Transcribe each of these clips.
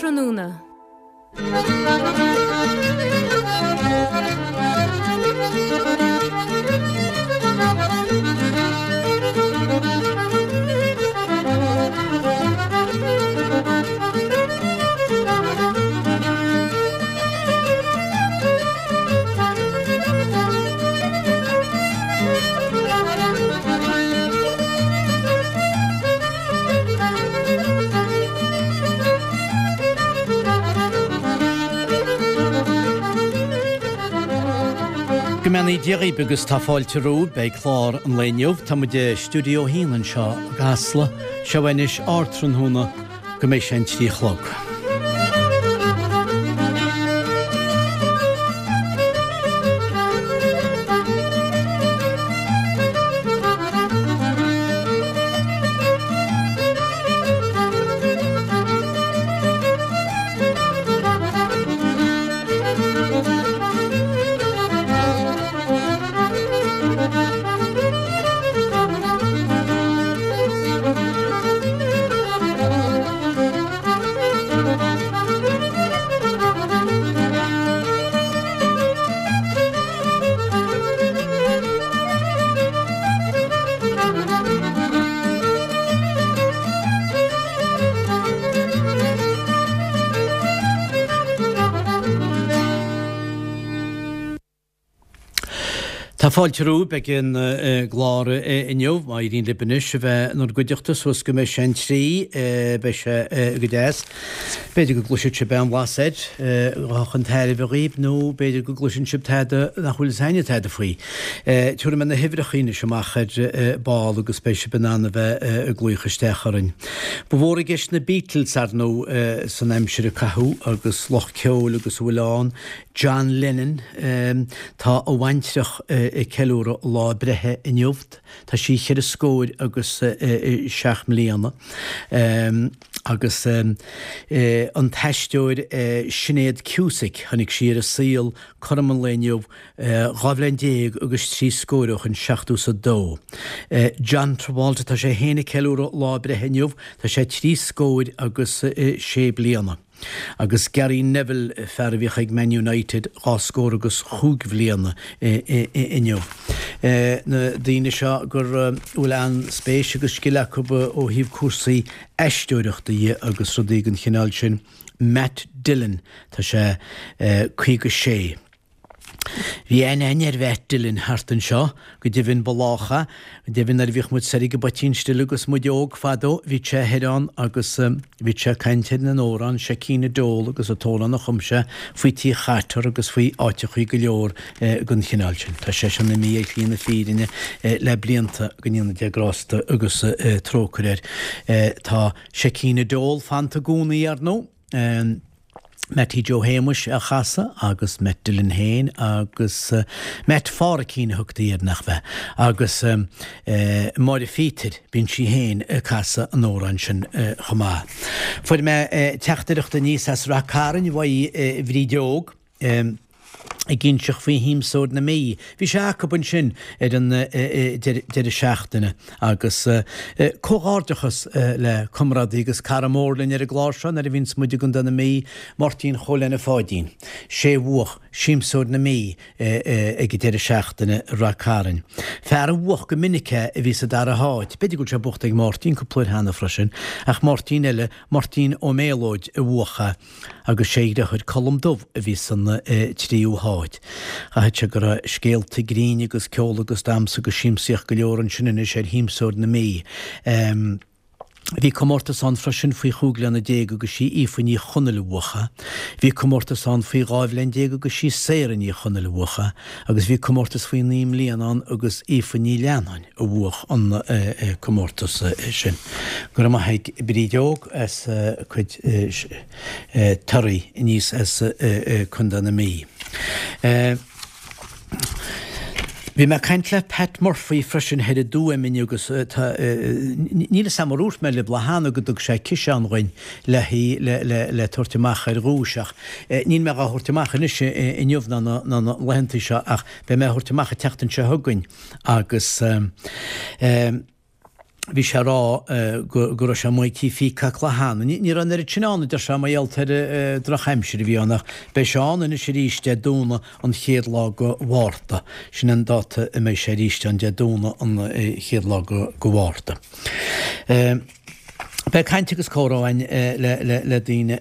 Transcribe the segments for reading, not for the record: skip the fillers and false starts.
Ardtráthnóna. Go mbeannaí Dia dhaoibh agus tá fáilte romhaibh beidh clár an lae inniu. Tá muid i Stiúideo 1 anseo i gCasla. Seo anois Ardtráthnóna go mbeidh sé an 3 a chlog. Tá fáilte romhaibh beidh an gclár inniu, má éiríonn libh anois a bheith inár gcuideachta suas go mbeidh sé an 3, beidh sé go deas. B'fhéidir go gcloisfidh sibh aon bhlas air a chun tairbhe dhaoibh nó b'fhéidir go gcloiseann sibh tada nach bhfuil fhios againne tada faoi. Tabharfaidh mé na huimhreacha anois amach ar ball agus beidh sibh in ann a bheith ag glaoch isteach orainn. Ba mhór i gceist na Beatles, ar ndóigh, san aimsir a caitheadh agus lucht ceoil agus a bhfuil ann. John Lennon, tá a bhaintreach ag ceiliúradh a lá breithe inniu. Tá sí cheithre scóir agus seacht mbliana. Agus an t-aisteoir Sinéad Cusack, tháinig sí ar an saol cothrom an lae inniu 12 bhliain agus trí scór ó shin, seachtó is a dó. John Travolta, tá sé féin ag ceiliúradh lá breithe inniu, tá sé trí scóir agus sé bliana. Agus Gary Neville, fear a bhíodh ag Man United, dhá scór agus chúig bhliana inniu. Na daoine seo go bhfuil an-spéis agus scil acu ó thaobh cúrsaí aisteoireachta dhe agus rudaí den chineál sin. Matt Dillon, tá sé 56. Bhí aithne againn ar Mhatt Dillon thart anseo, go deimhin ba lách é, go deimhin nuair a bhíodh muid soir ag an bPoitín Stil agus muid óg fadó, bhíodh sé thoir ann agus bhíodh sé ag caint ar an amhrán Seichín a Dól agus an t-amhrán a chum sé faoi Tí Chatar agus faoi áiteachaí go leor den chineál sin. Tá seisean imithe ar shlí na fírinne le blianta, go ndéana Dia grásta agus trócaire air. Tá Seichín a Dól fanta i gcónaí, ar ndóigh. Mattie Joe Shéamuis á chasadh agus Matt Dillon féin agus Matt Pháraic a thugtaí air nach bhea? Agus Máire Phíotair, bíonn sí féin ag casadh an amhráin sin chomh maith. Fuair mé teachtaireacht aníos as Rath Cairn uaidh Bhríd Óg. ag inseacht faoi Shiamsóir na Mí. Bhí sé acu ansin ar an deireadh seachtaine agus comhghairdeachas le comrádaí agus cara mór linn ar an gclár seo nuair a bhíonns muid i gContae na Mí, Máirtín Chóil Anna Pháidín. Sé a bhuach Siamsóir na Mí ag an deireadh seachtaine i Rath Cairn. Fear a bhuach go minic é a bhí sa dara háit. B'fhéidir go bhfuil sé buachta ag Máirtín cúpla uair cheana freisin, ach Máirtín eile, Máirtín Ó Méalóid a bhuach é. agus sé a dheartháir Colm Dubh a bhí san tríú háit. Chaithfeadh sé go raibh scéalta grinn agus ceol agus damhsa agus siamsaíocht go leor ansin anois ar Shiamsóir na Mí. Bhí comórtas ann freisin faoi chúig bhliana déag agus sí Aoife Ní Chonaill a bhuach é. Bhí comórtas ann faoi 12 bhliain agus sí Sarah Ní Chonaill a bhuach é agus bhí comórtas faoi naoi mbliana ann agus Aoife Ní Leannáin. a bhuach an comórtas sin. Go raibh maith ag Bríd Óg as a cuid torthaí aníos as Contae na Mí. Bhí mé ag caint le Pat Murphy freisin thoir i dTuaim inniu agus tá, níl fhios a'm ar dhúirt mé libh lá cheana go dtug sé ciseán dhuinn le le le tabhairt amach ar dhuais ach níl mé dhá thabhairt amach anois inniu ná na laethanta seo ach beidh mé á thabhairt amach an tseachtain seo chugainn. Agus. Bhí sé ag rá go raibh sé amuigh ag Tí Phíocac lá cheana. Ní raibh an oiread sin ann, a deir sé, mar gheall ar an drochaimsir a bhí ann ach beidh sé ann anois arís Dé Domhnaigh an chéad lá go Mhárta. Sin an dáta a mbeidh sé arís ann, Dé Domhnaigh an chéad lá go Mhárta. Beidh caint agus comhrá againn le daoine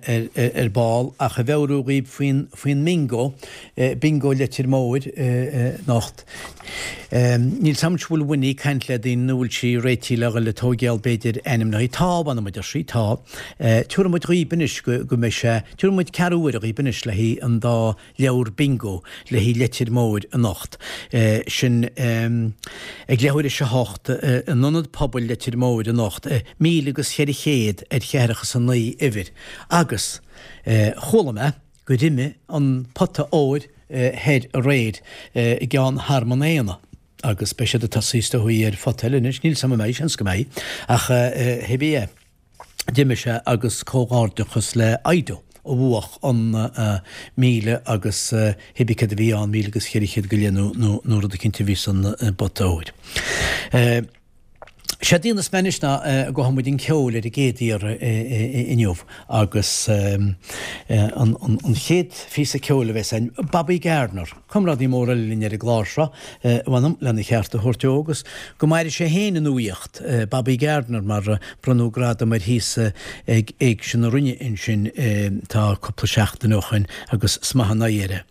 ar ball ach a mheabhrú dhaoibh faoin faoin mbingo, Bingo Leitir Móir anocht. Níl 's a'm an bhfuil Winnie ag caint le daoine nó bhfuil sí réitithe le dhul ag tóigeáil b'fhéidir ainmneacha. Tá, mh'anam a deir sí, tá. Tiúrfaidh muid dhaoib anois go go mbeidh sé, tiúrfaidh muid ceathrú uaire dhaoib anois le haghaidh an dá leabhar bingo le haghaidh Leitir Móir anocht. Sin ag leathuair théis a hocht in Ionad Pobail Leitir Móir anocht, 1400 ar cheathracha is a 9 uimhir. Agus chuala mé gur imigh an pota óir thoir aréir i gceann Thearmann Éanna agus beidh siad ag tosaí is dóigh ar phota eile anois. Níl 's a'm an mbeidh, seans go mbeidh. Ach hé bí é. D'imigh sé agus comhghairdeachas le Aido a bhuach an 1000 agus hébí céard a bhí ann, 1400 go leith nó nó rud eicínt a bhí san bpota óir. Séard a dhéanfas mé anois ná go gabhfaidh muid chun ceoil ar an gcéad iarraidh inniu agus an chéad phíosa ceoil a bheas againn, Bobby Gardner. Comrádaí mór eile linn ar an gclár seo, mh'anam, lena cheart a thabhairt dó agus go maire sé féin i nuaíocht, Bobby Gardner, mar bronnadh gradam air thíos ag Éigse na Rinne ansin tá cúpla seachtain ó shoin agus is maith an oidhre é.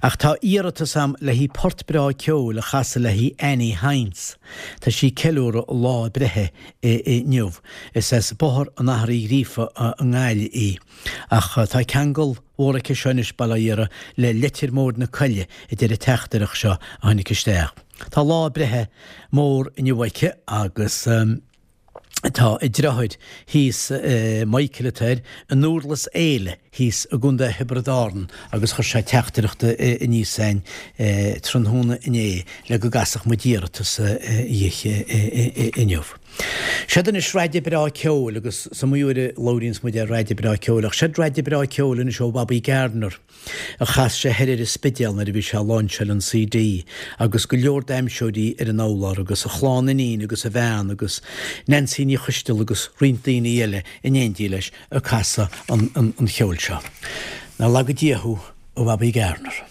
Ach tá iarratas a'm le haghaidh port breá ceoil a chasadh le haghaidh Annie Hynes. Tá sí ag ceiliúradh a lá breithe inniu. Is as Bóthar an Athar Uí Ghríofa i nGaillimh í. Ach tá ceangal mhór aici seo anois, bail ó Dhia uirthi, le Leitir Móir na Coille, a deir an teachtaireacht seo a tháinig isteach. Tá lá breithe mór inniu aici agus tá a deartháir thíos, Michael atá air, i nDúrlas Éile thíos i gContae Thiobraid Árann agus chuir sé teachtaireacht aníos a'inn tráthnóna inné le go gcasfadh muid iarratas dhi inniu. Seod anois raide breá ceoil agus is iomaí uair a labhraíonns muid ar raide breá ceoil ach seod raide breá ceoil anois ó Bhobby Gardner a chas sé thoir ar an Spidéal nuair a bhí sé ag láinseáil an CD agus go leor damhsóirí ar an urlár agus a chlann iníon agus a bhean agus Nancy Ní Choisteala agus roinnt daoine eile in éindí leis ag casadh an cheoil seo. Nár laga Dia thú a Bhobby Gardner.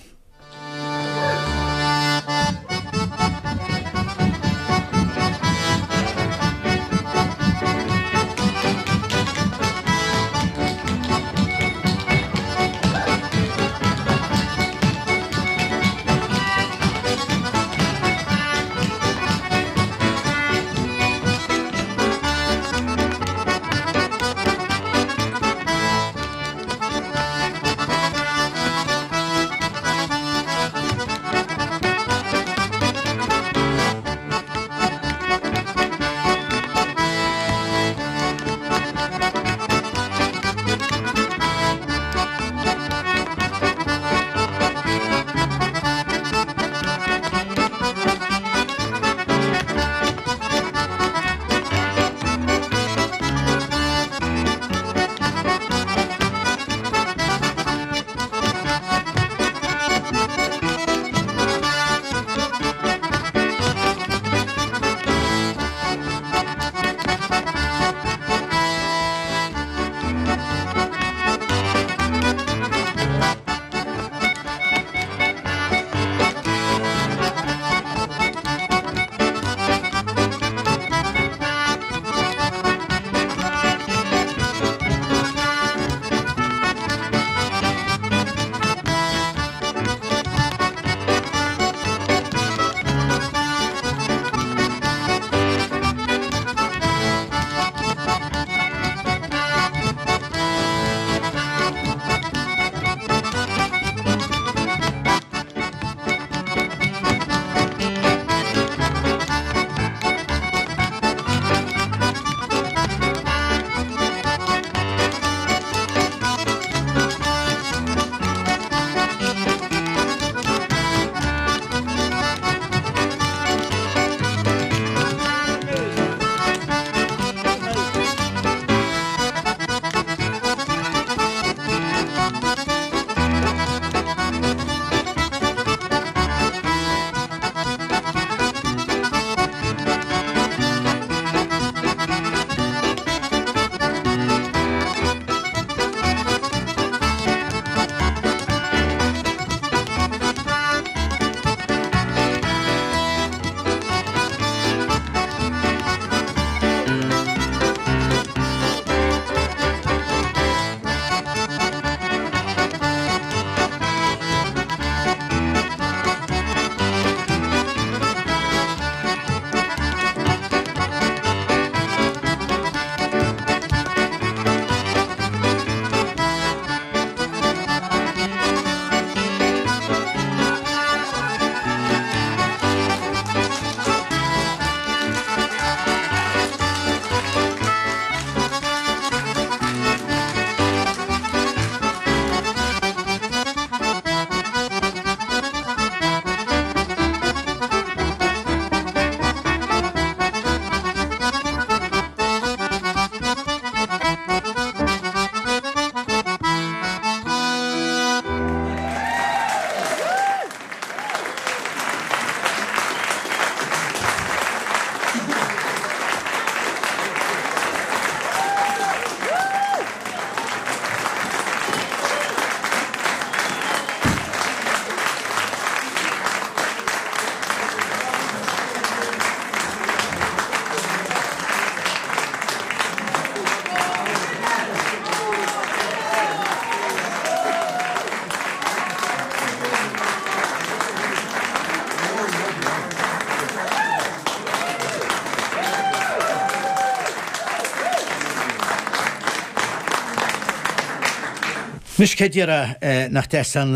Anois cé déarfá nach deas an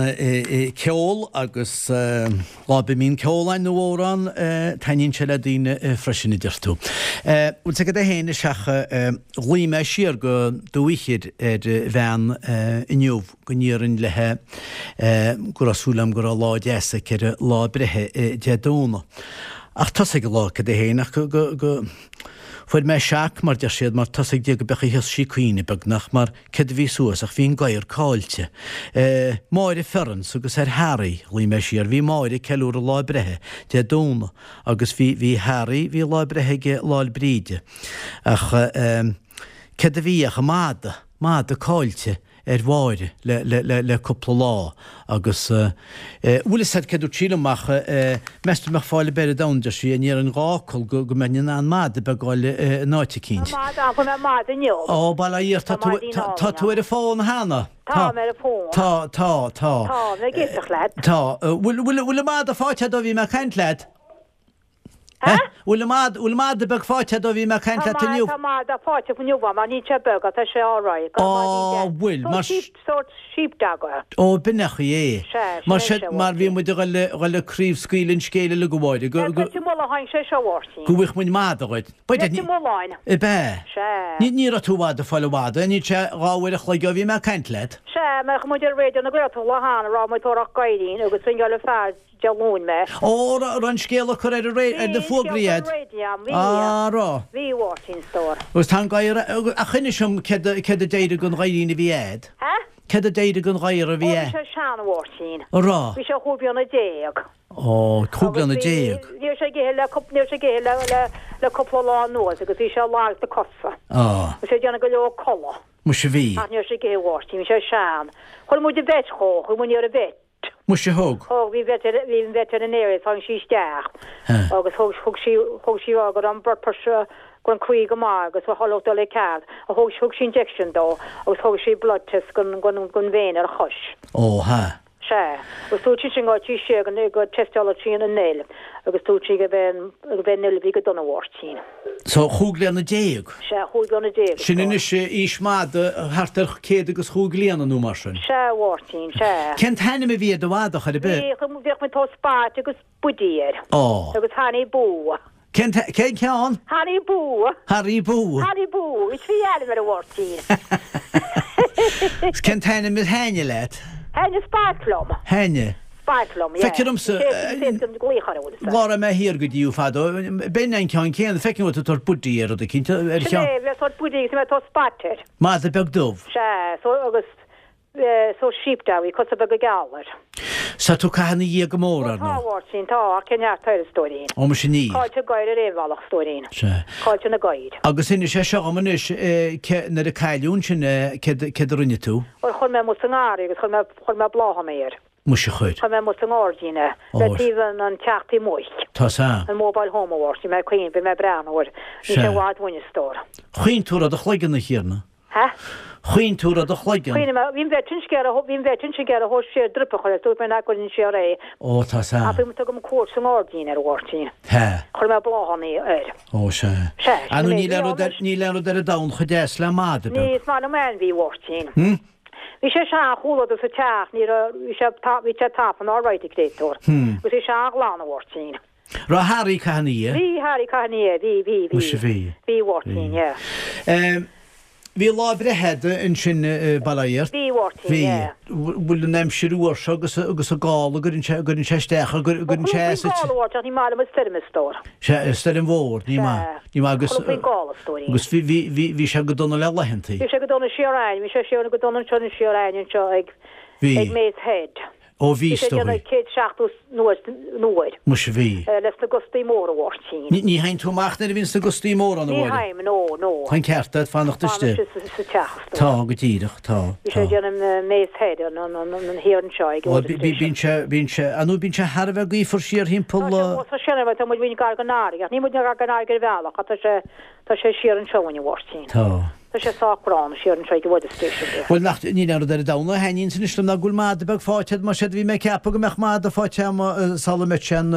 ceol agus lá ar bith a mbíonn ceol ann nó amhrán, taitníonn sé le daoine freisin a deir tú. Bhfuil 's agat é féin is ach ghlaoigh mé siar go Dumhaigh Chir ar bhean inniu go n-iarrfainn léithe go raibh súil agam go raibh lá deas aici ar a lá breithe Dé Domhnaigh. Ach tosaigh an lá cad é féin ach go go fuair mé shock mar deir siad mar tosaigh Dia go beadh a fhios sí caoineadh beagnach mar Céard a bhí suas ach bhí an gadhar caillte. Máire Ferrans agus ar Harry, ghlaoigh mé siar, bhí Máire ag ceiliúradh lá breithe Dé Domhnaigh agus bhí, bhí Harry, bhí lá breithe aige Lá 'le Bríde. Ach céard a bhí ach an mada, mada caillte ar Mháire le, le, le, le cúpla lá agus bhfuil fhios a'd céard dúirt sí liom ach meas tú mbeadh fáil ar bith ar domhan, deir sí, an ndéarfainn dhá fhocal go go mbeinn in ann mada beag a fháil in áit eicínt. Tá mada ann, fuair mé mada inniu. Ó, bail ó Dhia ort, tá tú, tá tú ar an bhfón cheana? Táim ar an bhfón. Tá, tá, tá. Tá, mé ag éisteacht leat. Tá. Bhfuil, bhfuil, bhfuil an mada faighte a'd ó bhí mé ag caint leat? Hä? Bhfuil an mada, bhfuil mada beag faighte a'd ó bhí mé ag caint leat inniu? Tá mada faighte inniu agam, ach níl sé beag, ach tá sé alright. Á, bhfuil, mar. Sórt sheep, sórt sheepdog é. Ó, b'in é an chaoi é. Sea, Mar sin é sin, sé, mar bhí muid ag dul, ag dul ag craobhscaoileadh an scéil uilig a Mháire, go, go. Leitir Mealláin tháinig sé seo, a Mháirtín. Go bhfaigheadh muid mada dhuit. Leitir Mealláin. Ab ea? Sea. Ní, ní raibh tú i bhfad ag fáil an mhada, níl sé dhá uair a chloig ó bhí mé ag caint leat. Sea, mar chuaigh muid ar Raidió na Gaeltachta lá cheana, raibh muid ag tóraíocht gadhairín agus ringeáil an fear Dé Luain mé. Ó, raibh an scéal á cur ar an ré, ar na fógraí a'd. Bhí an scéal ar an raidió, bhí. Á, raibh. Bhí, a Mháirtín, stór. Agus tá an gadhar, ach inis dom céard a, céard a d'éirigh den ghadhairín a bhí a'd? Hä? Céard a d'éirigh den ghadhar a bhí Ó, a'd? bhí sé sean, a Mháirtín. A raibh? Bhí sé chúig bliana déag. Ó, chúig bliana déag. Ní raibh sé ag ithe le, ní raibh sé ag ithe le, le, le cúpla lá anuas agus bhí sé lag sna cosa. Á. Bhí sé ag déanamh go leor codladh. Muise bhí. Ach ní raibh sé ag ithe, a Mháirtín, bhí sé sean. Chuir muid an vet dhó, chuaigh muid ar an vet. Muise thug. Thug, bhí vet ar, bhí an vet tháinig sí isteach agus thug, thug sí, thug sí rá go raibh an blood pressure, go raibh an croí go maith agus go raibh dul i ceart. Thug, thug sí injection dó agus thug sí blood test gon, gon, gon vein ar a chois. Ó, ha. Sea. Agus dúirt sí sin go raibh sí siar go, go teisteáladh sí an fhuil agus dúirt sí go b'é an, go b'é an fhuil a bhí go dona, a Mháirtín. So, chúig bliana déag. Sea, chúig bliana déag. Sin anois aois mada thart ar céad agus chúig bliana nó mar sin. Sea, a Mháirtín, sea. Cén t-ainm a bhí ar do mhada chor ar bith? Bhí, bhíodh muid ag tabhairt Spot agus Buddy air. Á. Agus Harry Boo. Cén t-, cén ceann? Harry Boo. Harry Boo. Harry Boo. Is bhí ainm air a Mháirtín. Cén t-ainm a thaitnigh leat? Thaitnigh Spot liom. Thaitnigh. Spot liom, yeah. Feictear domsa, lá a raibh mé thiar go dtí thú fadó, b'in an ceann céanna, feicim go bhfuil tú ag tabhairt Buddy ar rud eicínt, ar Sin cheann. é, bhí mé ag tabhairt Buddy agus bhí mé ag tabhairt Spot air. Mada beag dubh. Sea, so agus, sórt sheepdog, bhí cosa beaga geala air. Tá tú ag caitheamh ina dhiaidh go mór, ar Ó tá, ndóigh. a Mháirtín, tá, ach cén neart air, a stóirín. Ó, muise níl. Caillte gadhair ar aon bhealach, a stóirín. Sea. Caillte na gadhair. Agus inis é seo dhom anois, ce, nuair a cailleadh ansin é, céard, céard a rinne tú? Bhuel, chuir mé amuigh sa ngarraí agus chuir mé, chuir mé bláthanna air. Muise chuir. Chuir mé amuigh sa ngairdín é, le taobh an teach taobh amuigh. Tá sea. An mobile home a Mháirtín, mé ag cuimhneamh, bhí mé ag breathnú air. Níl sé Sea. i bhfad uainn, a stór. Chaoin tú ar do chloigeann, a Thiarna. Hä? Chaoin tú ar do chloigeann. Chaoin mé, bhí an vet ansin ag iarraidh, bhí an vet ansin ag iarraidh thabhairt siar drip a chur air, dúirt mé nach gcuirfinn siar é. Ó, tá sea. Ach bhí muid ag tabhairt cuairt sa ngairdín air, a Mháirtín. Hä? Chuir mé bláthanna air. Ó, sea. Sea, Ah, sin nó é, níl bhí aon rud ar, ann. níl aon rud ar an domhan chomh deas le mada Ní, beag. is maith liom ainmhí, a Mháirtín. Hm? Bhí sé an-chualadar sa teach, ní raibh, bhí sé, bhí sé tafann alright, a créatúr. Agus bhí sé an-ghlan, a Mháirtín. Raibh Harry ag caitheamh ina dhiaidh? Bhí Harry ag caitheamh ina dhiaidh, bhí, bhí, bhí. Muise bhí. Bhí, a Mháirtín, yeah. Em, bhí lá breithe a'd ansin i Baile Átha Fhirt? Bhí, a Mháirtín, Bhí. yeah. Bhfuil an aimsir fhuar seo agus, agus an gála, gcuireann sé, gcuireann sé isteach, gcuireann sé as Chuala faoin gála, a Mháirtín, ach ní maith liom an stoirm, a stór. Sea, stoirm mhór, ní Sea. maith. Ní maith agus, Chuala faoin gála, a stóirín. agus bhí, bhí, bhí, bhí sé go dona le laethantaí. Bhí sé go dona siar a'ainn, bhí sé siar go dona anseo siar a'ainn anseo ag, Bhí. ag Mace Head. Ó bhí, Bhí sé is dóigh. déanamh 170 nuair, uair. Muise bhí. Leis na gustaí móra, a Mháirtín. Ní, ní théann tú amach nuair a bhíonns na gustaí móra ann, a Ní Mháire. théim, no, no. Tá an ceart agat fanacht istigh. Fanacht sa, sa teach, a stór. Tá, go díreach, tá, Bhí sé tá. ag déanamh Mace Head, an, an, an, an thiar anseo ag Ó, bí, bí, bíonn sé, bíonn sé, ah nó bíonn sé thar a bheith gaofar siar thimpeall. Tá sé, tá sé, tá muid muid gar don fharraige, ach níl muid gar don fharraige ar bhealach, ach tá sé, tá sé siar anseo uainn, a Mháirtín. Tá. Tá sé sách gránna siar anseo ag an weather station there. Bhuel, nach, níl aon rud ar an domhan a thaitníonns anois liom ná go bhfuil mada beag faighte a'd, mar séard a bhí mé ag ceapadh go mbeadh mada faighte a'm sula mbeadh sé an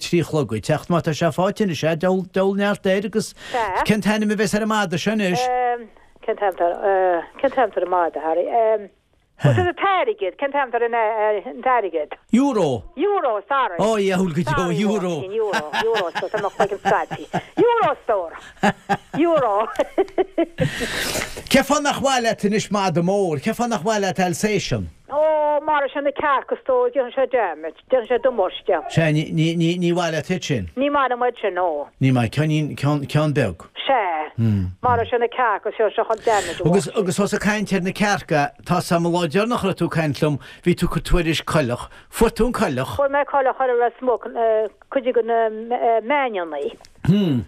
trí a chlog ag teacht, má tá sé faighte anois, eh, deabhal, deabhal neart air agus Sea. cén t-ainm a bheas ar an mada seo anois? Cén t-ainm atá ar, cén t-ainm atá ar an mada, Harry? Agus an t-airgead, cén t-ainm atá ar an t-airgead? Euro. Euro, sorry. Ó, diabhal go deo, euro. Sorry, euro, euro, so tá mo chloigeann scaipthe. Euro, stór. Euro. Cén fáth nach mhaith leat anois mada mór? Cén fáth nach mhaith leat Alsatian? Ó, maróidh sé na cearca, stór, déanfaidh sé damage, déanfaidh sé damáiste. Sea, ní, ní, ní, ní mhaith leat iad sin? Ní maith liom iad sin, no. Ní maith, ceannín, ceann, ceann beag. Sea, maróidh sé na cearca, seo, seo chun damage a Agus, agus ós ag caint ar na cearca, tá 's a'm an lá deireanach a raibh tú ag caint liom, bhí tú ag cur tuairisc coileach. Fuair tú an coileach? Fuair mé coileach ar Ros Muc, cuid de na meáineannaí. Hmm.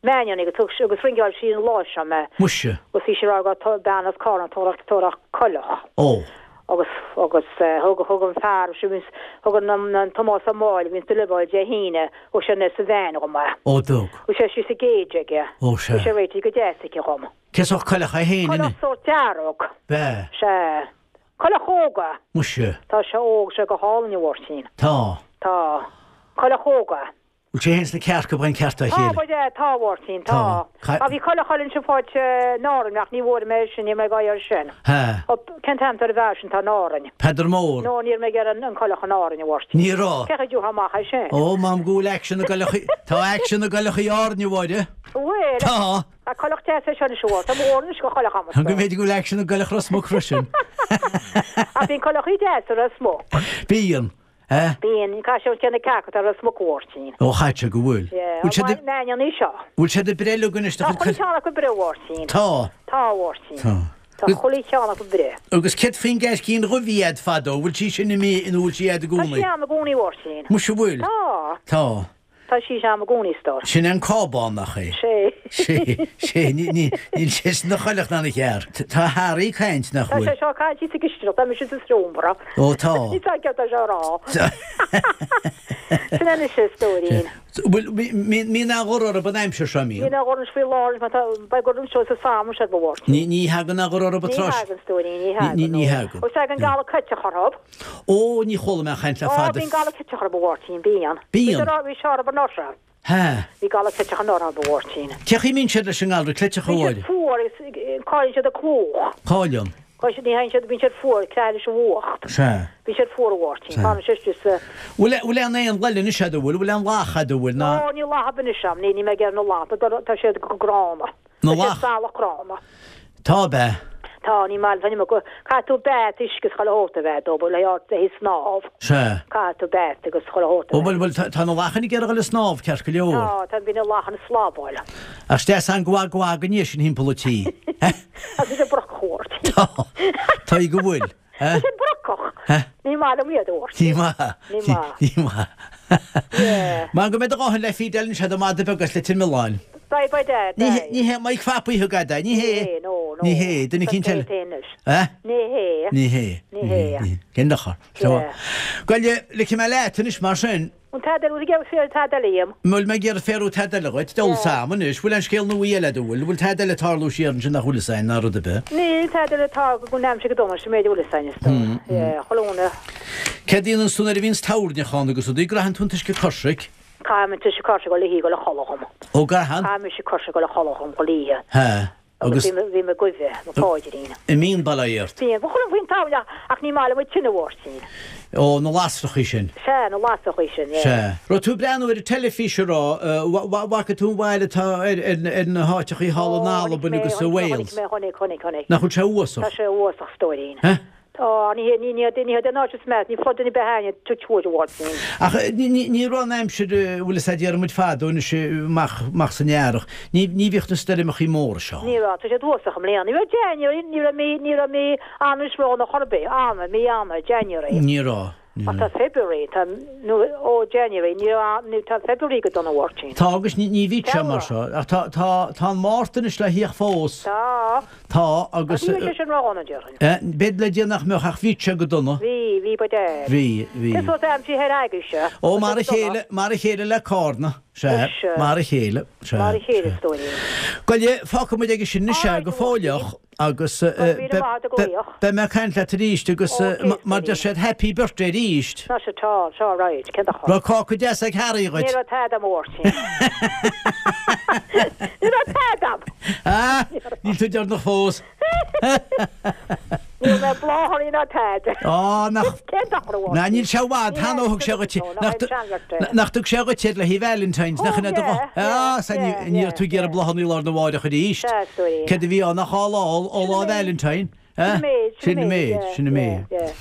Meáineannaí agus thug agus ringeáil sí an lá seo mé. Muise. Agus bhí sí ag rá go raibh bean as Cárna ag tabhairt coileach. Ó. Agus, agus thug, thug an fear, thug an, an Tomás Ó Máille a bhíonns ag deliveráil Dé hAoine, thug sé anuas sa veain dhom é. Ó dtug. Bhí sé síos sa gcage aige. Ó sea. Bhí sé réitithe go deas aici dhom. Cén sórt coileach é fhéin inniu? Coileach sórt dearg. B'ea. Sea. Coileach óg é. Muise. Tá sé óg, sé go hálainn a Mháirtín. Tá. Tá. Coileach óg é. Bhfuil sé fhéin 's na cearca ag baint ceart dá Tá, chéile? ba ea, tá, a Mháirtín, Tá. tá. Tá, bhí coileach eile ansin faighte in Árainn ach ní bhfuair mé é sin, níl mé ag iarraidh sin. Ha. Ó, cén t-ainm atá ar an bhfear sin atá in Árainn? Peadar Mór. No, ní raibh mé ag iarraidh an coileach in Árainn, a Mháirtín. Ní raibh. Cé chaoi a dtiúrfá amach é sin? Ó, m'anam go bhfuil aicsean i gcoileachaí, tá aicsean i gcoileachaí Árainn, a Mháire. Bhfuil? Tá. Tá coileach deas é seo anois, a Mháirtín. Tá mo dhóthain anois de choileach a'm. Go mb'fhéidir go bhfuil aicsean i gcoileach Ros Muc freisin. Ach bíonn coileachaí deasa i Ros Muc. Bíonn. Eh? Bíonn, caithfidh sé na cearca atá i Ros Muc a Mháirtín. Ó chaithfidh sé go bhfuil. Yeah, Bhfuil siad ag. Meáineann í seo. Bhfuil siad ag breith uilig anois do Tá chuile cheann acu ag breith a Mháirtín. Tá. Tá a Mháirtín. Tá. Tá chuile cheann acu ag breith. Agus céard faoin gceaircín dhubh a bhí a'd fadó, bhfuil sí sin imithe nó bhfuil sí a'd i Tá gcónaí? sí a'm i gcónaí a Mháirtín. Muise bhfuil? Tá. Tá. Tá sí a'm i gcónaí, a stór. Sin é an cábán, nach é? Sé. Sé, sé, ní, ní, níl sé ina choileach ná ina chearc. Tá Harry ag caint, nach Tá bhfuil? sé seo ag caint thíos sa gcistineach, tá mise sa seomra. Ó, tá. Ní tá ceart é seo a rá. Sin é anois a stóirín. Bhfuil, mbíonn aon ghor orthu an aimsir seo, mbíonn? Bíonn aon ghor anois faoi láthair, mar tá, beidh gor anseo sa samhradh, sé ba mhór. Ní, ní thagann aon ghor orthu Ní tráth. thagann, stóirín, ní thagann. Ní, ní thagann. Ó, tagann galar cleiteach orthu. Ó, ní chuala mé aon chaint le Ó, fada. bíonn galar cleiteach orthu, a Mháirtín, bíonn. Bíonn. Bhí sé orthu anuraidh. Ha. Bhí galar cleiteach anuraidh, a Mháirtín. Cé chaoi a mbíonn siad leis an ngalra cleiteach, a Bíonn Mháire? siad fuar agus cailleann siad a clúch. Cailleann. Cailleann siad, ní thagann siad, bíonn siad fuar, creatha leis an bhfuacht. Sea. Bíonn siad fuar, a Mháirtín. Sea. Fanann siad istigh sa. Bhfuil, bhfuil aon éan eile anois a'd, an bhfuil, bhfuil aon lach a'd, an bhfuil, ná. Ó, níl lach ar bith anois a'm, ní, níl mé ag iarraidh na lach, tá siad go gránna. Na Tá siad lach. salach gránna. Tá, ab ea? Tá, ní maith liom, caithfidh tú bath uisce is chuile shórt a bheith dóibh le haghaidh snámh. Sea. Caithfidh tú bath agus chuile shórt a Ó, bheith. bhuel, bhuel, tá na lachain ag iarraidh a dhul ag snámh, ceart go leor. Tá, tá, bíonn na lachain ag slabáil. Ach is deas an gua gua go ndiaidh sin thimpeall an tí. Tá siad brocach, a Mháirtín. Tá, tá go bhfuil. Tá siad brocach. Ní maith liom iad, a Mháirtín. Ní maith. Ní maith. Ní maith. Yeah. Mar go mbeidh do dhóthain le Fidel anseo do mhada beag as Leitir Mealláin. Beidh, beidh Dad, Ní beidh. ní hé Mike Phapaí thug fhad é, ní hé. Ní hé, no, no. Ní hé, duine eicínt eile. Ní hé anois. Eh? Ní hé. Ní hé. Ní hé. Cén dochar? Yeah. Bhuel, ligfidh mé leat anois mar sin. An tada eile, bhfuil féar tada eile dhíom? Bhfuil mé ag iarraidh féarú tada eile dhuit? Deabhal 's a'm anois. Bhfuil aon scéal nua eile a'd, an bhfuil? Bhfuil tada eile ag tarlú siar ansin nach bhfuil fhios a'inn ná rud ar bith? Níl tada eile ag tarlú go n-aimsigh go dona, sin méid a bhfuil fhios a'inn is dóigh. Yeah, chuile dhuine. Céard a dhéananns tú nuair a bhíonns toirneach ann agus rudaí? Graitheann tú an t-uisce coisric? Caithim an t-uisce coisric chuile oíche ag dul a chodladh dhom. Ó, gcaitheann? Caithim uisce coisric ag dul a chodladh dhom chuile oíche. Ha. Agus bhí mé goimhe, mo pháidrín. An mbíonn bail ort. Bíonn. Ba chuma faoin tamall ach ní maith liom an tine, a Mháirtín. Ó, na lasrachaí sin. Sea, na lasrachaí sin, yeah. Sea. Raibh tú ag breathnú ar an teilifís, an raibh? Bhfaca tú an bhail atá ar na háiteachaí thall in Albain agus i Wales? Chonaic mé, chonaic, chonaic, chonaic. Nach bhfuil sé uafásach? Tá sé uafásach, stóirín. Huh? Tá, ní hé, ní, ní, ní hé den áit is meas, ní flood any behind it, touch wood, a Mháirtín. Ach ní, ní raibh an aimsir, bhfuil fhios a'd, déarfaidh muid fadó anois amach, amach san earrach, ní, ní bhíodh na stoirmeachaí móra seo. Ní raibh, tá siad uafásach i mbliana. Ní raibh January, ní raibh mí, ní raibh mí Eanáir ródhona chor ar bith, Eanáir, mí Eanáir, January. Ní raibh, ní Ach tá raibh. February, tá, nó, ó January, ní raibh, ní, tá February go dona, a Mháirtín. Tá agus ní, ní bhíodh sé mar Feabhra. seo, ach tá, tá, tá an Márta anois le thíocht fós. Tá. Tá, agus. Ní bheadh sé sin ródhona, déarfainn. B'fhéidir le Dia nach mbeadh, ach bhíodh sé go dona. Bhí, bhí, ba dear. Bhí, bhí. Cén sórt aimsir thoir agaibhse? Ó, mar a chéile, mar a chéile le Cárna, sea, mar a chéile, sea. Mar a chéile, a stóirín. Bhuel, fágfaidh muid aige sin anois é go fóilleach agus beidh mé ag caint leat arís agus mar deir siad happy birthday arís. Tá sé, tá, tá, right, cén dochar. Raibh cáca deas ag Harry dhuit? Ní raibh tada a'm a Mháirtín. Ní raibh tada a'm. Ah, níl tú deireanach fós. Ní. Ní raibh mé bláthanna ná tada. Á, nach. Cén dochar a bhfuair Ná níl sé i bhfad cheana ó thug sé dhuit é. Nach dtug sé dhuit iad le haghaidh Valentine's, nach in é do Thug, yeah, yeah, Á, sea, ní raibh tú ag iarraidh bláthanna lá arna mháireach arís. Sea, a stóirín. Céard a bhí ann ach lá ó lá Valentine, eh? Sin an méid, sin an méid, sin an méid. yeah, yeah.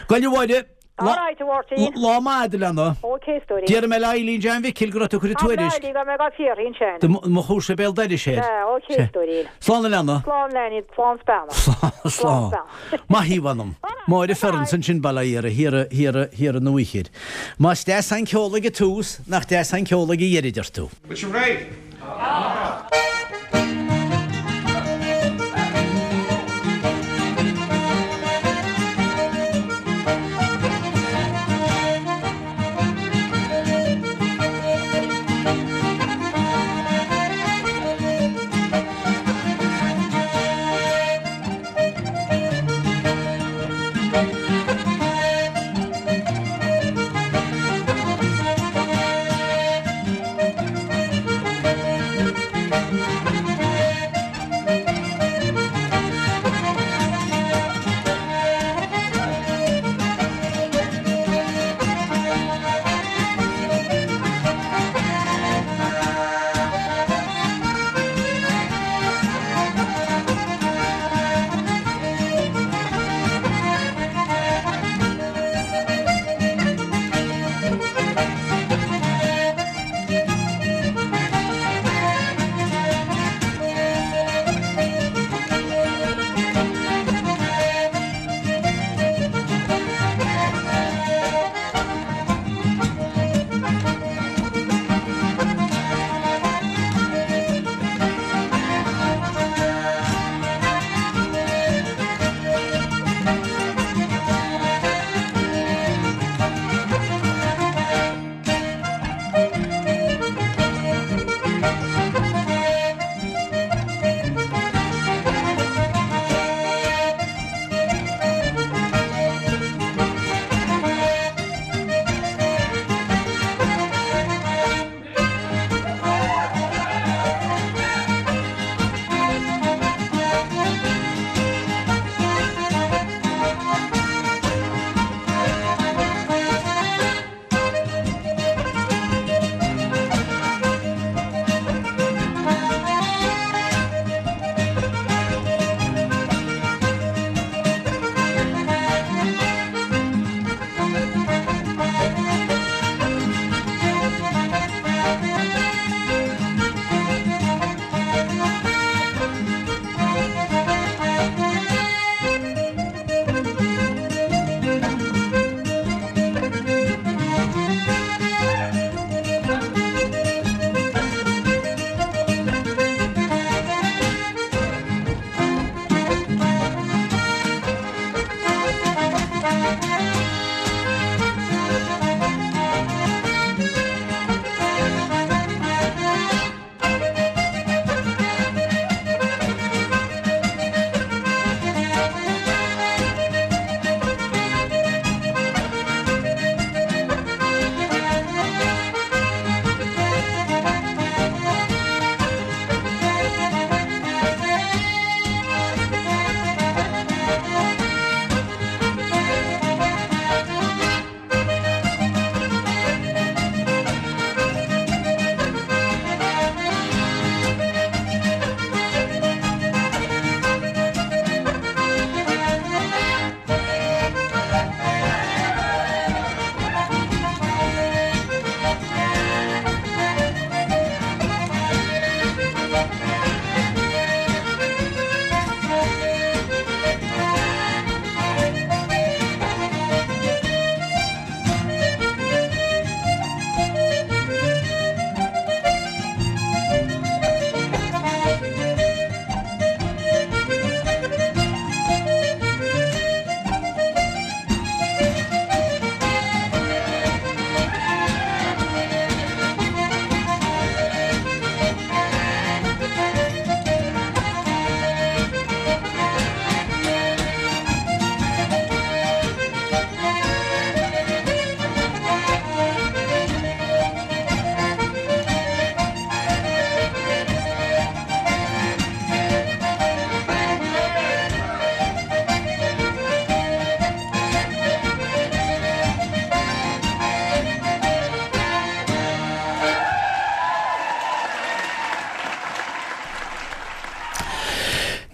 Gabhail a Mháire, All right, a Mháirtín. Lá maith agat, a leana. Ok, a stóirín. Déarfaidh mé le Eileen John Mhicil go raibh tú ag cur an tuairisc. Tá mé go mbeidh á fiafraí ansin. Do mo chúrsa béal dorais air. Sea, ok, a stóirín. Slán a leana. Slán, a leainín, slán 's beannacht. Slán, slán. Maith í, mh'anam. Máire Ferns ansin, Baile Iara, thiar, thiar, thiar an Uaichir. Más deas an ceol ag an tús, nach deas an ceol ag an dheireadh, deir tú. Bhfuil sibh réidh?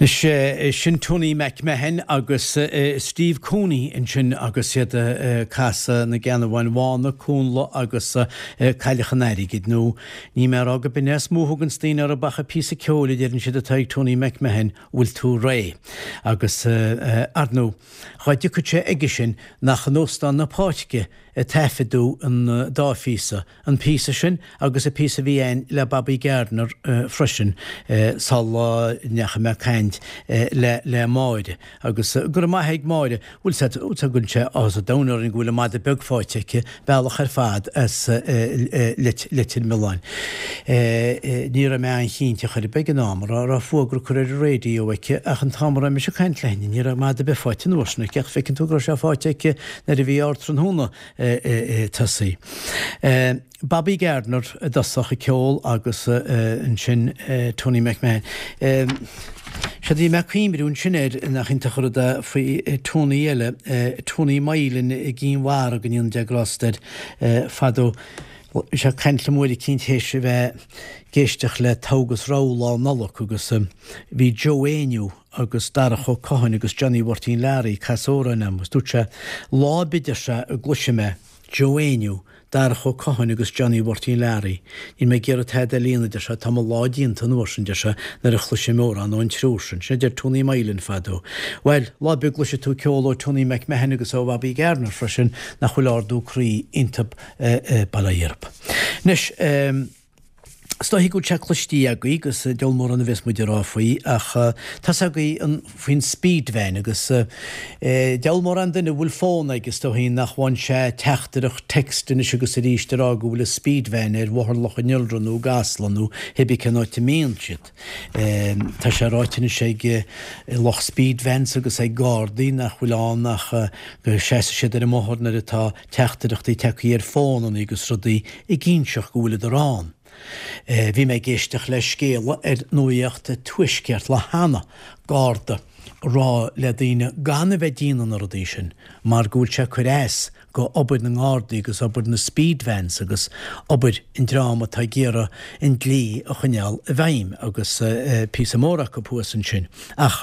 Anois, sin Tony MacMahon agus Steve Cooney ansin agus iad ag casadh Na Geanabháin Bhána, Cúnla agus Cailleach an Airgid, nó níl mé ag rá go b'in é is mó a thuganns daoine orthu ach an píosa ceoil a deireann siad atá ag Tony MacMahon, bhfuil tú réidh? Agus, ar ndóigh, dhá dtiocfadh sé aige sin nach in Óstán na Páirce a taifeadadh an dá phíosa, an píosa sin agus an píosa a bhí a'inn le Bobby Gardiner freisin sula ndeachaigh mé ag caint le le Máire agus go raibh maith ag Máire, bhfuil sé go bhfuil sé áthas an domhain orainn go bhfuil an madadh beag faighte aici, bealach ar fad as Leitir Mealláin. Ní raibh mé an-chinnte chor ar bith ag an am an raibh fuagra curtha ar an raidió aici ach an t-am a raibh mise ag caint léi ní raibh madadh ar bith faighte an uair sin aici ach feiceann tú go raibh sé faighte aici nuair a bhí ár tráthnóna tosaithe. Bobby Gardiner i dtosach ag ceol agus ansin Tony MacMahon. Séard a bhí mé ag cuimhniú ansin air, nach iontach an rud é faoi Tony eile, Tony Moylan i gCinn Mhara, go ndéana Dia grásta air, fadó. Bhí sé ag caint liom uair eicínt théis a bheith ag éisteacht le Togha agus Rogha Lá Nollag agus bhí Joe Éinniú agus Darach Ó Catháin agus Johnny Mháirtín Learaí ag casadh amhráin a'm agus dúirt sé, lá ar bith deir sé a gcloisfidh mé Joe Éinniú, Darach Ó Catháin agus Johnny Mháirtín Learaí, níl mé ag iarraidh tada eile a dhéanamh deir sé, tá mo lá déanta an uair sin deir sé, nuair a chloisim amhrán ón triúr sin. Sin a deir Tony Moylan fadó. Bhuel, lá ar bith a gcloisfidh tú ceol ó Tony MacMahon agus ó Bhobby Gardiner freisin nach bhfuil ardú croí iontub bail ó Dhia oraibh. Anois, Is dóichí go bhfuil sé cloistí agaibh agus diabhal mórán a bheas muid ag rá faoi ach tá's agaibh faoin speed van agus diabhal mórán duine a bhfuil fón aige is dóichí nach bhfaigheann sé teachtaireacht text anois agus arís ag rá go bhfuil an speed van ar Bhóthar Loch an Iolra nó i gCasla nó cibé cén áit a mbíonn siad. Tá sé ráite anois ag lucht speed vans agus ag Gardaí nach bhfuil ann ach go seasfaidh siad ar an mbóthar nuair atá teachtaireachtaí tagtha ar fónanna agus rudaí ag inseacht go bhfuileadar ann. Bhí mé ag éisteacht le scéala ar Nuacht an Tuaiscirt lá cheana, Garda ag rá le daoine gan a bheith ag déanamh na rudaí sin mar go bhfuil sé ag cur as go obair na nGardaí agus obair na speed vans agus obair an dream atá ag iarraidh an dlí a choinneáil i bhfeidhm agus píosa mór acu thuas ansin. Ach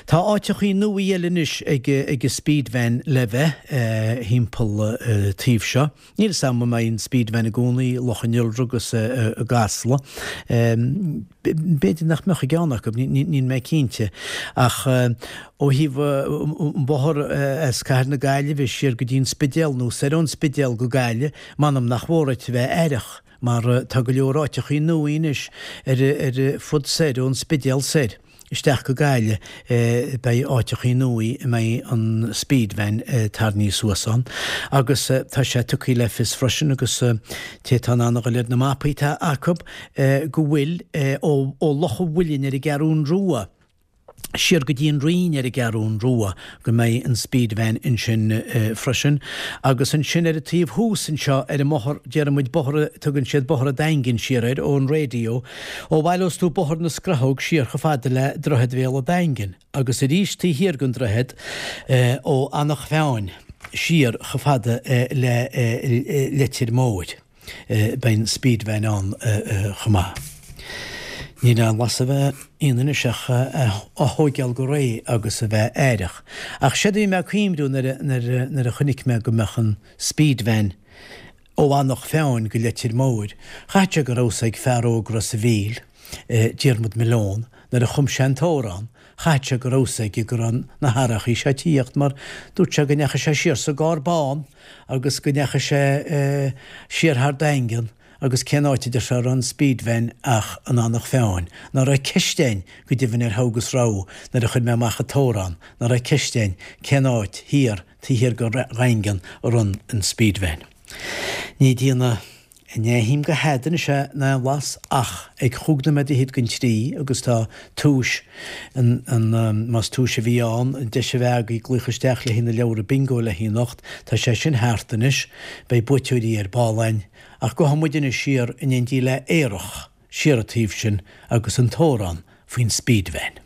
tá áiteachaí nua eile anois ag an speed van le bheith thimpeall taobh seo. Níl 'fhios a'm an mbeidh an speed van i gcónaí i Loch an Iolra agus i gCasla. B'fhéidir nach mbeadh i gceann acu, níl mé cinnte. Ach ó thaobh an bóthar as Cathair na Gaillimhe siar go dtí an Spidéal nó soir ón Spidéal go Gaillimh, m'anam nach mór ort a bheith aireach mar tá go leor áiteachaí nua anois ar ar fud soir ón Spidéal soir isteach go Gaillimh beidh áiteachaí nua a mbeidh an speed van tarraingthe suas ann agus tá sé tugtha le fios freisin agus té atá in ann a dhul ar na mapaí atá acu go bhfuil ó Loch an Mhuilinn ar an gCeathrún Rua siar go dtí an Rinn ar an gCeathrún Rua go mbeidh an speed van ansin freisin. Agus ansin ar an taobh thuas anseo ar an mbóthar, déarfaidh muid bóthar, tugann siad Bóthar an Daingin siar air ón raidió, ó bhaileos tú Bóthar na Scrathóg siar chomh fada le Droichead Bhéal an Daingin agus arís taobh thiar den droichead ó Eanach Mheáin siar chomh fada le Leitir Móir. Beidh an speed van ann chomh maith. Níl aon bhlas a bheith ionann anois ach á thóigeáil go réidh agus a bheith aireach. Ach séard a bhí mé ag cuimhniú nuair a chonaic mé go mbeadh an speed van ó Eanach Mheáin go Leitir Móir, chaithfeadh sé go raibh 'fhios ag fear óg Ros a' Mhíl, Diarmuid Malone, nuair a chum sé an t-amhrán, Chaithfeadh sé go raibh 'fhios aige go raibh na hathrachaí seo ag tíocht mar dúirt sé go ndeachaigh sé siar sa gcarr bán agus go ndeachaigh sé siar thar Daingean agus cén áit a deir sé a raibh an speed van ach in Eanach Mheáin. Ná raibh ceist againn go deimhin ar thogha agus rogha nuair a chuir mé amach an t-amhrán, ná raibh ceist againn cén áit thiar taobh thiar go Dhaingean a raibh an speed van. Ní déanamh Ní aithním go hada anois é in aon bhlas ach ag chúig nóiméad fhichead don trí agus tá túis an, an, más túis a bhí ann, an deis a bheith agaibh glaoch isteach le haghaidh na leabhra bingo le haghaidh anocht, tá sé sin thart anois, beidh buaiteoirí ar ball againn. Ach gabhfaidh muid anois siar in éindí le Aerach, siar an taobh sin agus an t-amhrán faoin speed van.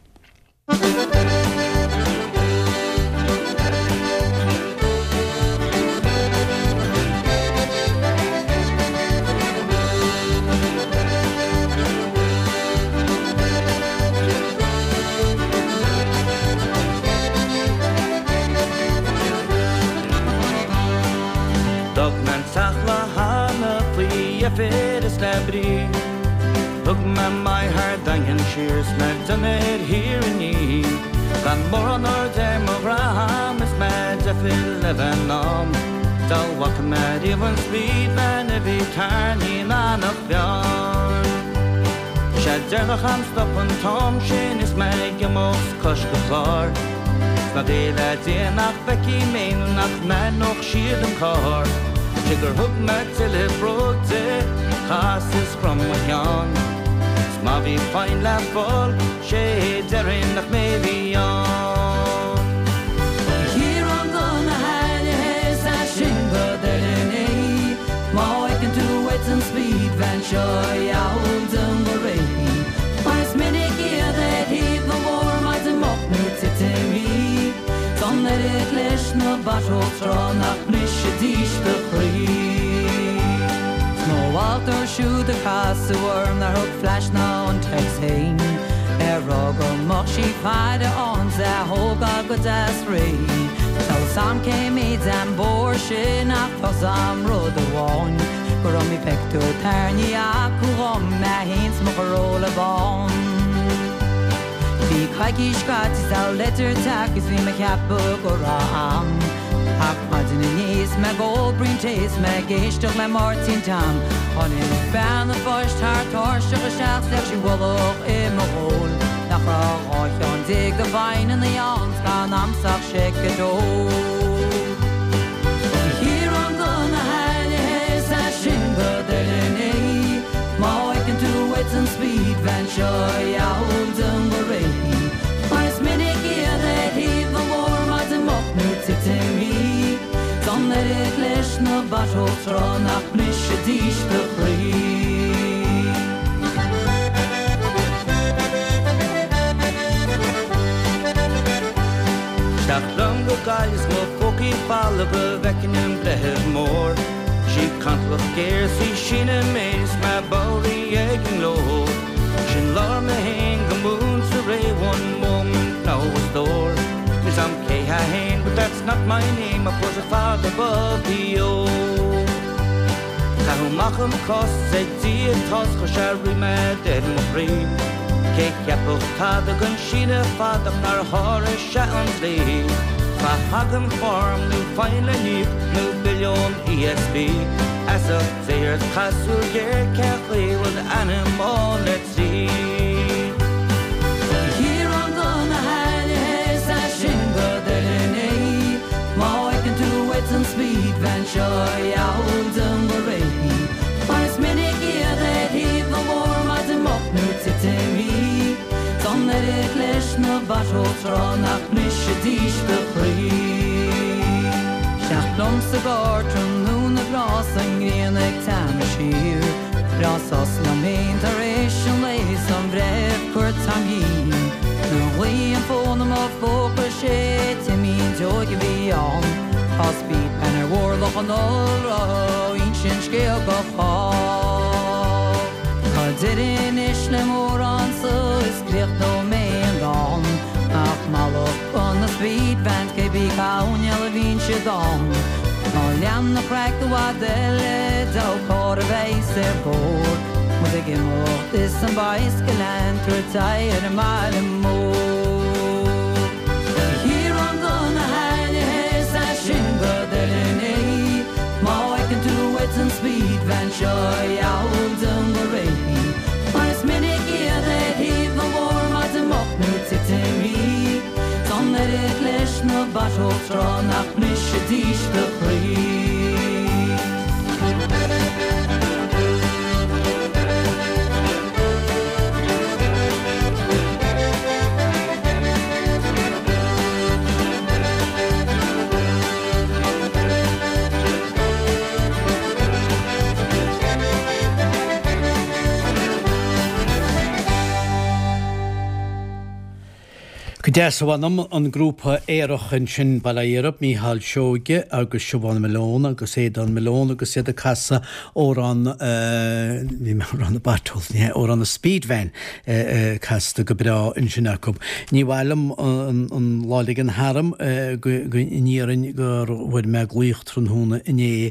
deifir is le brí. Thug mé m'aghaidh thar Daingean siar 's mé ag déanamh ar Thír an Fhia. Gan mórán aird ar mo dhroim is mé ag deifir le bheith in am. Dá bhfaca mé riamh an speed van a bhí tarraingthe in Eanach Mheáin. Sé deireanach a'm stop an t-am sin is mé ag imeacht cois go clár. 'S ná géilleadh Dia nach bhfeicfidh mé nó nach n-aithneodh siad an carr. Sé gur thug mé tuilleadh bróg di, chas is chrom mo cheann. 'S má bhí fine le fáil, sé déarfainn nach mé a bhí ann. A Chiaráin do na hailithe is é sin go deimhin é Má fheiceann tú uait an speed van seo gheall dom go réidh Mar is minic iad ar thaobh an bhóthair maidin moch nó titim í 's an oiread leis na bottles tráth nach mbrisfidís do chroí. 'S mo mhallacht orthu siúd a casadh orm nár thug flash ná an text féin ag rá go mbeadh sí faire ann 's é a thógáil go deas réidh. Tá 'fhios a'm cé méid an bóthar sin ach tá 'fhios a'm rud amháin gur iomaí pictiúr tarraingthe acu dhom mé fhéin 's mo Chorolla bán. Bhí coicís caite 's a leitir teacht is bhí mé ceapadh go raibh am Ach maidin inné is mé ag ól braon tae is mé ag éisteacht le Máirtín Tom Tháinig bean an phoist thar tairseach isteach 's leag sí ualach i mo ghoal Nach raibh 12 cheann de phinteannaí ann 's gan a'msa ach seic a dó. A Chiaráin do na hailithe is é sin go deimhin é Má fheiceann tú uait an speed van seo gheall dom go réidh Mar is minic iad ar thaobh an bhóthair maidin moch nó titim í 's an oiread leis na bottles tráth nach mbrisfidís do chroí. Isteach liom go Gaillimh 's mo phócaí folamh go bhfeicfinn an Breitheamh Mór. Sí cantalach géar 's í síneadh méid is mé bodhraithe ag an nglór. Sin labhair mé fhéin go múinte réidh one moment now a stór. Níl 's a'm cé hé fhéin but that's not my name I put a fada above the O. Caitheadh amach an cás ag Dia tost chuir sé ríméad ar mo chroí. Cé cheapfadh tada den síneadh fada ach nár sháraigh sé an dlí. Má thagann form nó fine le n-íoc nó bille ón ESB, Feasacht Dé ort caith súil ghéar cén chaoi bhfuil d'ainm ann le tríd. A Chiaráin do na hailithe is é sin go deimhin é Má fheiceann tú uait an speed van seo gheall dom go réidh Mar is minic iad ar thaobh an bhóthair maidin moch nó titim í 's an oiread leis na bottles tráth nach mbrisfidís do chroí. Isteach liom sa gcarr tráthnóna breá 's an ngrian ag teannadh siar. Breá sos liom féin tar éis an lae 's an breitheamh cuairt am dhíon. Nuair a ghlaoigh an fón i mo phóca sé Timín Deoigh a bhí ann. Tá speed van ar mhurlach an ollrotha ó insint scéal go chách. Tá deireadh anois le mórán so is críochnóidh mé an dán. Ach mallacht do na speed vans cé bith cá huain a bhíonn siad ann. Ná lean an chraic i bhfad eile dó carr a bheas ar bord. Muid ag imeacht is an bicycle ag tabhairt aghaidh ar an mbaile mór. A Chiaráin do na hailithe is é sin go deimhin é Má fheiceann tú uait an speed van seo gheall dom go réidh Mar is minic iad ar thaobh an bhóthair maidin moch nó titim í 's an oiread leis na bottles tráth nach mbrisfidís do chroí. Go deas a mh'anam, an grúpa aerach ansin, bail ó Dhia orthub, Mícheál Seoige agus Siobhán Malone agus Aodán Malone agus iad ag casadh amhrán, bhí mé ag rá na Beatles, ní hea, amhrán na Speed Van casta go breá ansin acu. Ní mhaith liom an lá a ligean tharam go n-iarrainn gur bhfuair mé glaoch tráthnóna inné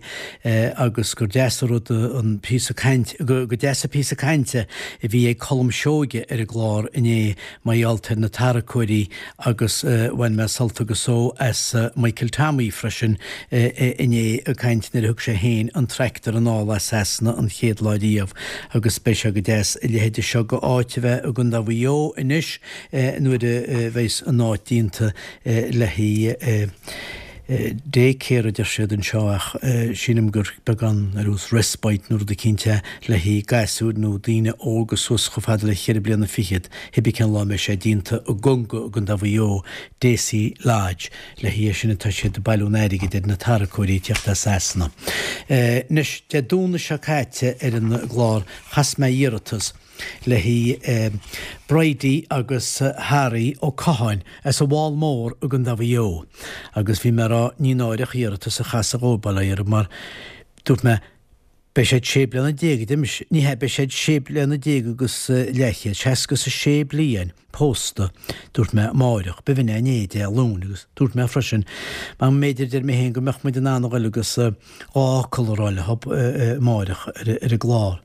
agus gur deas an rud an píosa caint, go deas an píosa cainte a bhí ag Colm Seoige ar an gclár inné mar gheall ar na tarracóirí agus bhain mé sult agus só as Michael Tommy freisin inné ag caint nuair a thug sé féin an tractor anall as Sasana an chéad lá riamh agus beidh sé go deas a leithéide seo go áit a bheith i gContae Mhaigh Eo anois nuair a bheas an áit déanta le haghaidh day care a deir siad anseo ach sílim gur beagán ar nós respite nó rud eicínt é le haghaidh gasúir nó daoine óga suas chomh fada le cheithre bliana fichead, cibé cén lá a mbeidh sé déanta i gConga i gContae Mhaigh Eo, Deasy Lodge, le haghaidh é sin atá siad ag bailiú an airgid ar na tarracóirí ag teacht as Sasana. Anois, Dé Domhnaigh seo caite ar an gclár chas mé iarratas le haghaidh Bridie agus Harry Ó Catháin as an bhFál Mór i gContae Mhaigh Eo agus bhí mé ag rá ní náireach iarratas a chasadh dhóibh bail ó Dhia orthu mar dúirt mé beidh siad sé bliana déag ní hea beidh siad sé bliana déag agus leathchéad, seasca is a sé bliain pósta dúirt mé amáireach, b'in é inné Dé Luain agus dúirt mé freisin mar mb'fhéidir deir mé féin go mbeadh muid in ann a ghoil agus dhá fhocal a rá leo amáireach ar an gclár.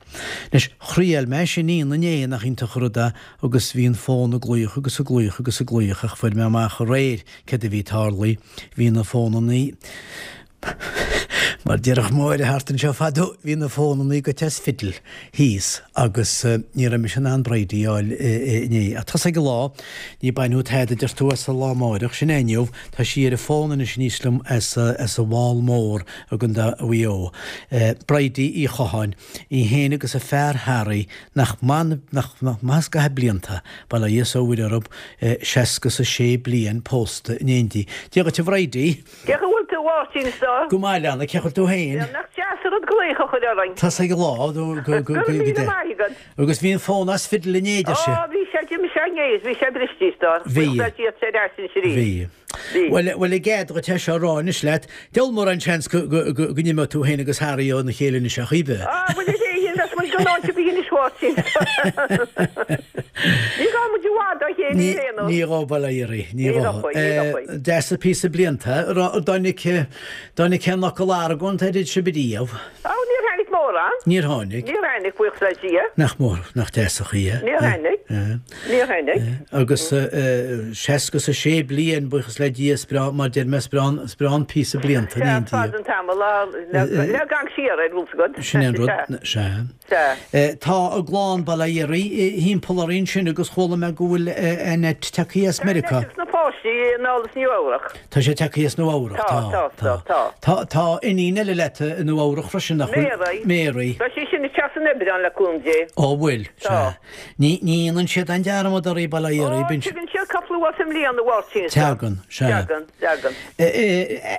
Anois, thriail mé sin inné, nach iontach an rud é, agus bhí an fón ag glaoch agus ag glaoch agus ag glaoch ach fuair mé amach aréir céard a bhí tarlaithe, bhí na fónannaí, mar déarfadh Máire thart anseo fadó, bhí na fónannaí goite as fidil thíos agus ní raibh mise in ann Bridie a fháil inné. Ach tá's ag an lá, ní bainfeadh tada, deir tú, as an lá amáireach, sin é inniu, tá sí ar an bhfón anois aníos liom as an bhFál Mór i gContae Mhaigh Eo. Bridie Uí Chatháin. Í féin agus a fear Harry, nach maith, nach maith an scaitheamh blianta, bail ó Dhia is ó Mhuire orthub, seasca is a sé bliain pósta in éindí. Dia dhuit a Bhridie! Cén chaoi a bhfuil tú, a Mháirtín, is dóigh? Go maith, a leana, cén chaoi a bhfuil tú féin? Bhuel, nach deas an rud glaoch a chur orainn. Tá's ag an lá, go, go, go, Go raibh míle maith agat. Agus bhí an fón as fidil inné, deir sí. Ó, bhí sé, d'imigh sé inné is bhí sé briste, is dóigh. Bhí. Bhuel, tá sé ar ais anois arís. Bhí. Bhí. Bhuel, bhuel, i gcead dhuit é seo a rá anois leat, Diabhal mórán seans go, go, go, go n-imeoidh tú féin agus Harry óna chéile anois ach oiread. Á, bhuel, ar éigean, bheas muid gan áit ar bith anois, a Mháirtín. Ní ghabhfaidh muid i bhfad dá chéile Ní, ar aon nós. ní ghabhfaidh, bail ó Dhia oraibh, ní Ní ghabhfaidh. ghabhfaidh, ní ghabhfaidh. Deas an píosa blianta. An dtáinig, dtáinig aon fhocal argóint idir sibh ariamh? Á, níor tháinig mórán. Níor tháinig. Níor tháinig, buíochas le Dia. Nach mór, nach deas an chaoi é. Níor tháinig. Níor tháinig. Agus 66 bliain, buíochas le Dia, is breá, mar deir mé, is breá, is breá an píosa blianta in éindí. Sea, fada an tamall le gan siar ar bhfuil 's agat. Sin é an rud, sea. Sea. Tá a gclann, bail ó Dhia uirthi, thimpeall orainn ansin agus chuala mé go bhfuil Annette tagtha as Tá Meiriceá. Annette agus na páistí anall as Nua Eabhrac. Tá sé tagtha as Nua Eabhrac, Tá, tá, tá, tá. Tá, tá iníon eile leat i Nua Eabhrac freisin, nach bhfuil? Mary. Mary. Tá sí sin ag teacht san Aibreán le cúnamh Dé. Ó, bhfuil, Tá. sea. Ní, ní dhéanann siad aon dearmad oraibh, bail ó Dhia Ó, oraibh, bíonn tagann siad cúpla uair sa mbliain, a Mháirtín, is dóigh. Tagann, sea. Tagann, tagann.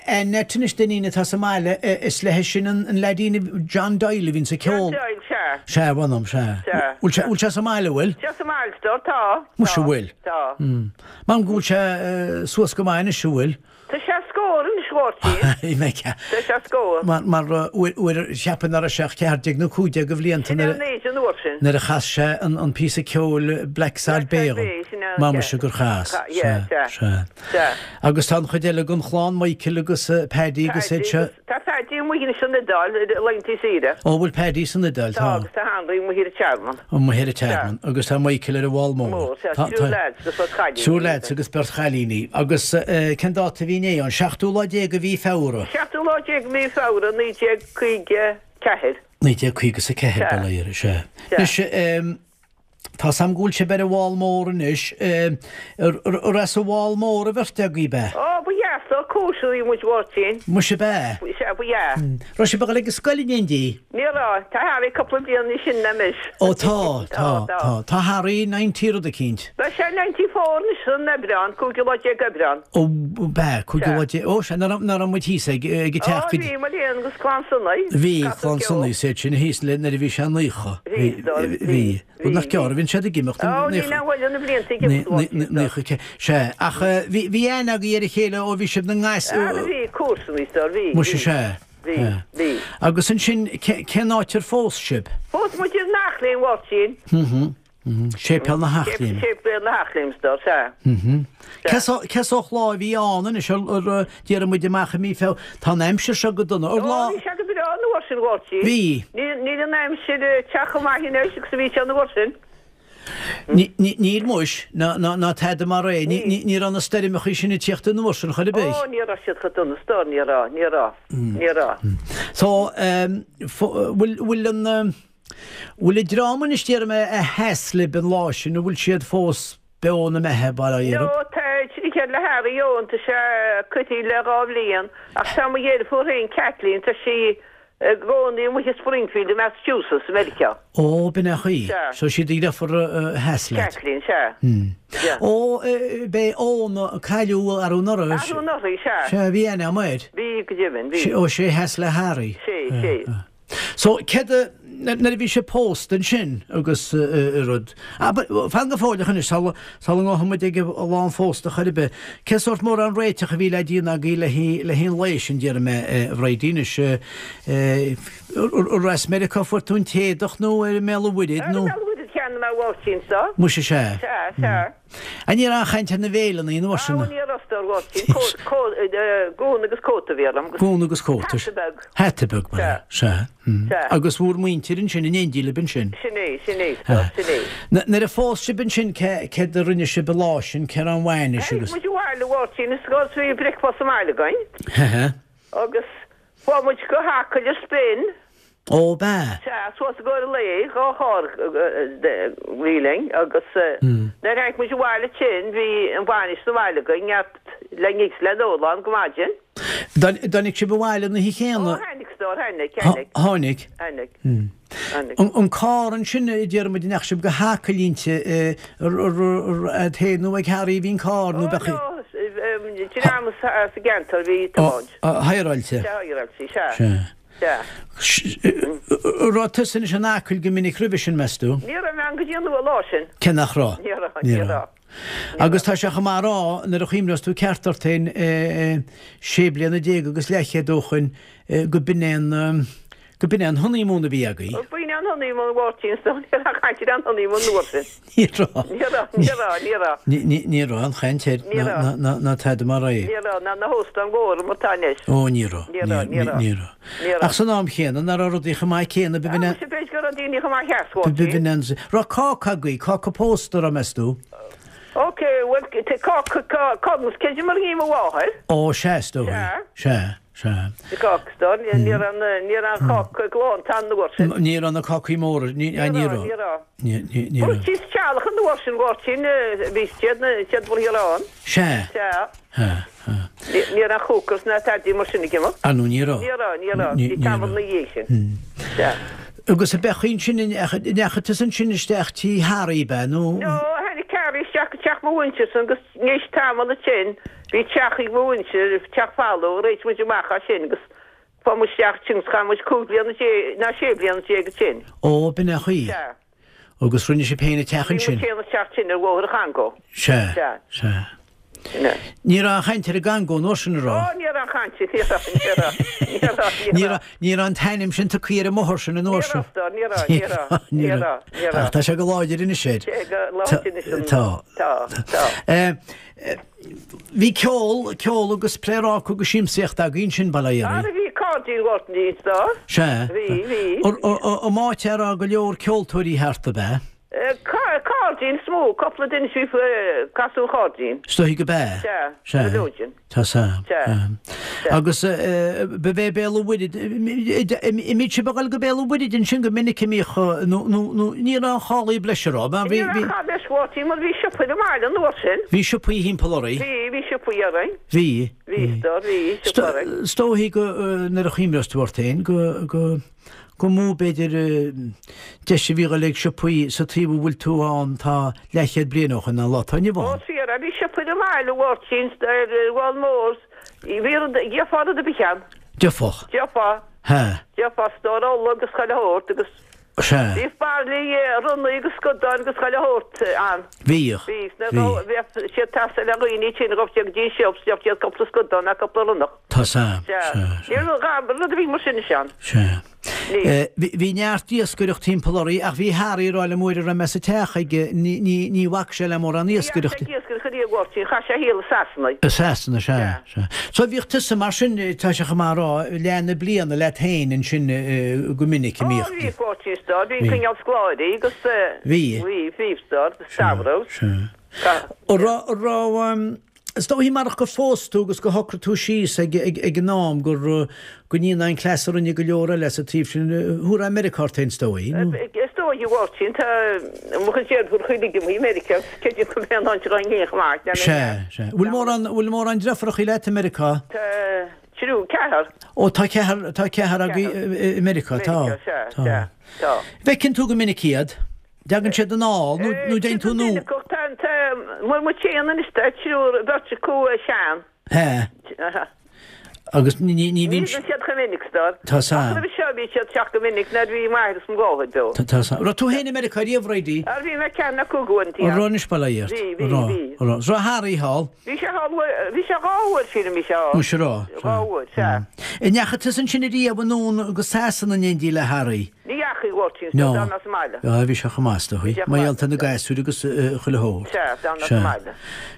Annette anois, d'iníon atá sa mbaile, is léi sin an leaidín John Doyle a bhíonns ag John ceol. Doyle, sea. Sea, mh'anam, sea. Sea. Bhfuil sé, bhfuil sé sa mbaile, bhfuil? Tá sa mbaile, tá, tá. Muise, bhfuil? Tá. M'anam go bhfuil sé suas go maith anois, an bhfuil? Tá sé scór anois, a Mháirtín. Tá sé scór. Mar, mar, uair, uair, cheapfainn nach raibh sé ach 14 nó 15 de bhlianta Sin nuair é a, an aois an uair sin. nuair a chas sé an, an píosa ceoil Blacksod Blacksod Bay dhom. Bay, sin é, Má sea. muise gur chas. Cha, yeah, Sea, sea. sea. Sea. Agus tá an chuid eile den chlann, Michael agus Paddy agus iad Paddy seo. agus, tá Paddy amuigh anois san Iodáil, ar laethanta saoire. Ó, bhfuil Paddy san Iodáil, Tá, tá. agus tá Henry amuigh ar an Tearmann. Amuigh ar an Tearmann. Agus tá Michael ar an bhFál Mór. Mór, sea, Tá, triúr tá. lads agus beirt chailíní. Triúr lads agus beirt chailíní. Agus cén dáta a bhí inné? An seachtú lá déag de mhí Feabhra. Seachtú lá déag de mhí Feabhra 1954. 1954, Sea. bail ó Dhia air, sea. Sea. Anois, tá's a'm go bhfuil sibh ar an bhFál Mór anois. Ar as an bhFál Mór an bheirt agaibh, ab ea? Ó, ba dheas dó, cóisirí muid, Mháirtín. Muise ab ea? Sea. Sea, ba ea. Raibh sibh ag dul ag an scoil in éindí? Ní raibh. Tá Harry cúpla bliain níos sine ná mise. Ó tá, tá, tá. Tá Harry ninety rud eicínt. Beidh sé 94 anois san Aibreán, cúigiú lá déag Aibreán. Ó, b'ea, cúigiú lá déag, ó sea, nach raibh muid thíos ag, ag an teach Ó, bhí, mo léan, agus clann Sonaí. Bhí, clann Sonaí, is iad sin thíos le nuair a bhí sé 90. Bhí, bhí, bhí. Rud nach gearr a bhíonn siad ag imeacht. Ó, níl aon mhoill ar na blianta ag imeacht, a Mháirtín. Sea, ach bhí, bhí aithne agaibh ar a chéile ó bhí sibh ina ngasúir. Ara bhí, comharsana, is dóigh, bhí, bhí. Muise, sea. Bhí, bhí. Agus ansin, cén áit ar phós sibh? Phós muid in Eachléim, a Mháirtín. Séipéal na hEachléime. Séipéal na hEachléime, is dóigh, sea. Cén sórt lá a bhí ann anois, ar, déarfaidh muid amach i mí Feabhra, tá an aimsir seo go dona, ar lá. Ó, bhí sé go breá an uair sin, a Mháirtín. Bhí. Níl an aimsir ag teacht chomh maith anois agus a bhí sé an uair sin. Níl muis, ná tada mar é, ní raibh na stoirmeachaí sin ag tíocht an uair sin chor ar bith. Ó, ní raibh siad chomh dona, is dóigh, ní raibh, ní raibh, ní raibh. So, bhfuil, bhfuil an. Bhfuil an dream anois déarfaidh mé a sheas libh an lá sin, an bhfuil siad fós beo ina mbeatha, bail ó Dhia orthu? No, tá tríd le Harry Eoin, tá sé coimhthí le dhá bhliain, ach tá mo dheirfiúr féin, Kathleen, tá sí i gcónaí amuigh i Springfield i Massachusetts, i Meiriceá. Ó, b'in é an chaoi. Sea. So sí do dheirfiúr a sheas leat. Kathleen, sea. Sea. Ó, b'é Eoin a cailleadh arú anuraidh. Arú anuraidh, sea. Sea, bhí aithne agam air. Bhí, go deimhin, bhí. Ó, sé a sheas le Harry. Sé, sé. So, céard a, nuair a bhí sibh pósta ansin agus rud, abair, fan go fóilleach anois, sula, sula ngabhfaidh muid ag an lá an phósta chor ar bith, cén sórt mórán réiteach a bhí le déanamh agaibh le haghaidh, le haghaidh an lae sin, déarfaidh mé, a Bhridie, anois, ar as Meiriceá a fuair tú an t-éadach nó ar i mBéal an Mhuirthead nó? Ar i mBéal an Mhuirthead a cheannaigh mé a Mháirtín, so. Muise, sea. Sea, sea. An ní raibh aon chaint ar na béileanna an uair sin? Ní raibh a stór, Mháirtín. Gúna agus cóta a bhí orm. Gúna agus cóta. Hata beag. Hata beag, ba ea. Sea. Sea. Agus bhur muintir ansin in éindí libh ansin. Sin é, sin é, sin é. Nuair a phós sibh ansin céard a rinne sibh an lá sin, cé raibh an bhainis agus. Tháinig muid abhaile, a Mháirtín, is bhí bricfeasta sa mbaile againn. Hehe. Agus chuaigh muid go hAcaill ar spin. Ó, b'ea? Sea, suas i gcomhair an lae, dhá charr a bhí linn agus nuair a tháinig muid abhaile ansin bhí an bhainis sa bhaile againn, neart le n-ithe is le n-ól ann go maidin. Dtáinig sibh abhaile an oíche chéanna? Ó, tháinig, a stór, tháinig, tháinig. Tháinig? Tháinig, tháinig. An carr ansin, a déarfaidh muid, an ndeachaigh sibh go hAcaill inti, agat féin nó ag Harry a bhí an carr nó Ó, beadh. no, dream sa gceantar a bhí ag tiomáint. Higheráilte? Sea, higheráilte, sea. Sea. Sea. An raibh tusa anois in Acaill go minic roimhe sin, meas tú? Ní raibh mé ann go dtí an lá sin. Cé nach raibh? Ní raibh, ní raibh. Agus tá sé chomh maith a rá, nuair a chuimhneos tú ceart ort féin, sé bliana déag agus leathchéad ó shoin, go b'in é an, go b'in é an honeymoon a bhí agaibh. B'in é an honeymoon, a Mháirtín, is dóigh, ní raibh aon chaint ar an honeymoon an uair sin. Ní raibh. Ní raibh, ní raibh, ní raibh. Ní raibh aon chaint air Ní raibh. ná tada mar é. Ní raibh, ná na hóstáin mhóra mar atá anois. Ó, ní raibh. Ní raibh, ní raibh. Ní raibh. Ní raibh. Ach san am chéanna, nach raibh rudaí chomh maith céanna, b'in Á, muise, b'fhéidir go raibh daoine chomh maith theas, a Mháirtín. B'in an. Raibh cáca agaibh, cáca pósta, raibh, meas tú? Ok, bhuel, cáca, conas, cé mar a bhí mo mháthair? Ó, sea, is dóigh. Sea. Sea. Sea. Cáca, ní raibh ní raibh an cáca glánta an uair sin. Ní raibh na cácaí móra, ní raibh. Ní raibh. Ní raibh. Bhuel, síos teallach an uair sin, Mháirtín, bhí siad siad bhur ann. Sea. Sea. Sea. Ní raibh cookers ná tadaí mar sin ag imeacht. Ah no, ní raibh. Ní raibh, ní raibh. Bhí tamall ina dhiaidh sin. Sea. Agus ab é ansin, an ndeachaigh tusa ansin isteach tí Harry, ab ea, nó? No, tháinig Harry isteach go teach mo mhuintirsan agus théis tamall ansin, Bhí teach ag mo mhuintir, teach folamh, réitigh muid amach as sin agus fuair muid isteach ansin agus chaith muid 15 bliana ná 16 bliana ansin. Ó, b'in é an chaoi. Sea. Agus rinne sibh féin an teach ansin? Bhí muid féin an teach sin ar Bhóthar an Chongó. Sea. Sea. Sea. Sin é. Ní raibh aon chaint ar an gCongó an uair sin, an raibh? Ó, ní raibh aon chaint, ní raibh, ní raibh, ní raibh, ní raibh. Ní raibh an t-ainm sin tugtha ar an mbóthar sin an uair sin. Ní raibh, ní raibh, ní raibh, ní raibh, ní raibh. Ach tá sé go láidir anois air. Sé go láidir anois an. Tá. Tá, tá. Bhí ceol, ceol agus pléaráca agus siamsaíocht agaibh ansin, bail ó Dhia oraibh. Ara bhí cairdín Ghortan Dín do. Sea. Bhí, bhí. An áit a raibh go leor ceoltóirí thart, ab ea? Cairdín is mó, cúpla duine a bhí ag casadh an chairdín. Is dóigh go b'ea. Sea. Sea. Go leor din. Tá sa. Sea. Sea. Agus ba bhé Béal an Mhuirthead, an mbíodh sibh ag dul go Béal an Mhuirthead ansin go minic a mbíodh, nó, nó, nó ní raibh aon chálaí breise, raibh? Ní raibh aon cháil breise, Mháirtín, mar bhí siopaí ar an mbaile an uair sin. Bhí siopaí thimpeall oraibh? Bhí, bhí siopaí. siopaí orainn. Bhí. Bhí, stór, bhí siopa orainn. Is dóichí go, nuair a chuimhneos tú ort féin, go, go, go mó b'fhéidir deis a bhí dhul ag siopaí sa taobh a bhfuil tú ann tá leathchéad bliain ó shoin ná an lá atá inniu ann. Ó, fíor, bhí siopa ar an mbaile, a Mháirtín, ar an bhFál Mór, bhí rud, gheofá rud ar bith ann. Gheofá. Gheofá. Hea. Gheofá stór ola agus chuile shórt agus. Sea. Bhíodh bairillí ronnaigh agus scadáin agus chuile shórt ann. Bhíodh. Bhí. Bhí. Bheadh siad ag teastáil le dhaoine tinn ghabh siad go dtí an siopa 's gheobhadh siad cúpla scadán ná cúpla ronnach. Tá 's a'm. Sea. Sea. Ní raibh rud ar bith mar sin ansin. Sea. Ní. Bhí neart iascaireacht timpeall oraibh ach bhí Harry ag rá liom uair a raibh mé sa teach aige, ní, ní, ní bhac sé le mórán Ní dheachaigh iascaireachta. sé ag iascaireacht ariamh a Mháirtín, chaith sé a shaol i Sasana. I Sasana, sea, sea. So bhíodh tusa mar sin, tá sé chomh maith a rá, leath na bliana leat féin ansin go minic a Ó, mbíodh. bhíodh a Mháirtín, stór, bhí coinneáil scoláirí agus, Bhí. bhí, bhí, stór, Sea, Stavros. sea. An raibh, an raibh, Is dóichí marach gur phós tú agus gur shocraigh tú síos ag an am gur go ndéanfá an cleas a rinne go leor eile sa taobh sin, thabharfá Meiriceá ort féin is dóigh, nó? Is dóigh, a Mháirtín, tá mo chuid deirfiúr chuile imithe i Meiriceá agus creidim go mbeidh an áit againn féin chomh maith le Sea, sea. Bhfuil mórán, bhfuil mórán deirfiúrachaí leat i Meiriceá? Tá triúr, ceathrar. Ó, tá ceathrar, tá ceathrar agaibh i Meiriceá, tá, Meiriceá, sea, tá. sea, tá. Bhfeiceann tú go minic iad? Dtagann siad anall nó nó dtéann tú anonn? Tá, tá, mar mo théann anois tá triúr, beirt acu sean. Hea. Agus ní, ní, ní bhíonn. Ní bhíonn siad chomh minic, stór. Tá 's a'm. Ach roimhe seo bhí siad teacht go minic nuair a bhí m'athair is mo mháthair beo. Tá, tá 's a'm. Raibh tú féin i Meiriceá riamh, Bridie? Ar bhí mé ceathair nó cúig uaireanta, An raibh anois bail ó Dhia ort? Bhí, bhí, An raibh, bhí. an raibh. Raibh Harry thall? Bhí sé thall, bhí sé dhá uair, sílim, bhí sé thall. Muise raibh. Dhá uair, sea. An ndeachaigh tusa ansin ariamh anonn go Sasana in éindí le Harry? Ní dheachaigh, a Mháirtín, so d'fhan mé sa mbaile. Á, bhí sé chomh maith, is dóigh. Bhí sé chomh Mar maith. gheall ar na gasúir agus chuile shórt. Sea, d'fhan mé sa mbaile.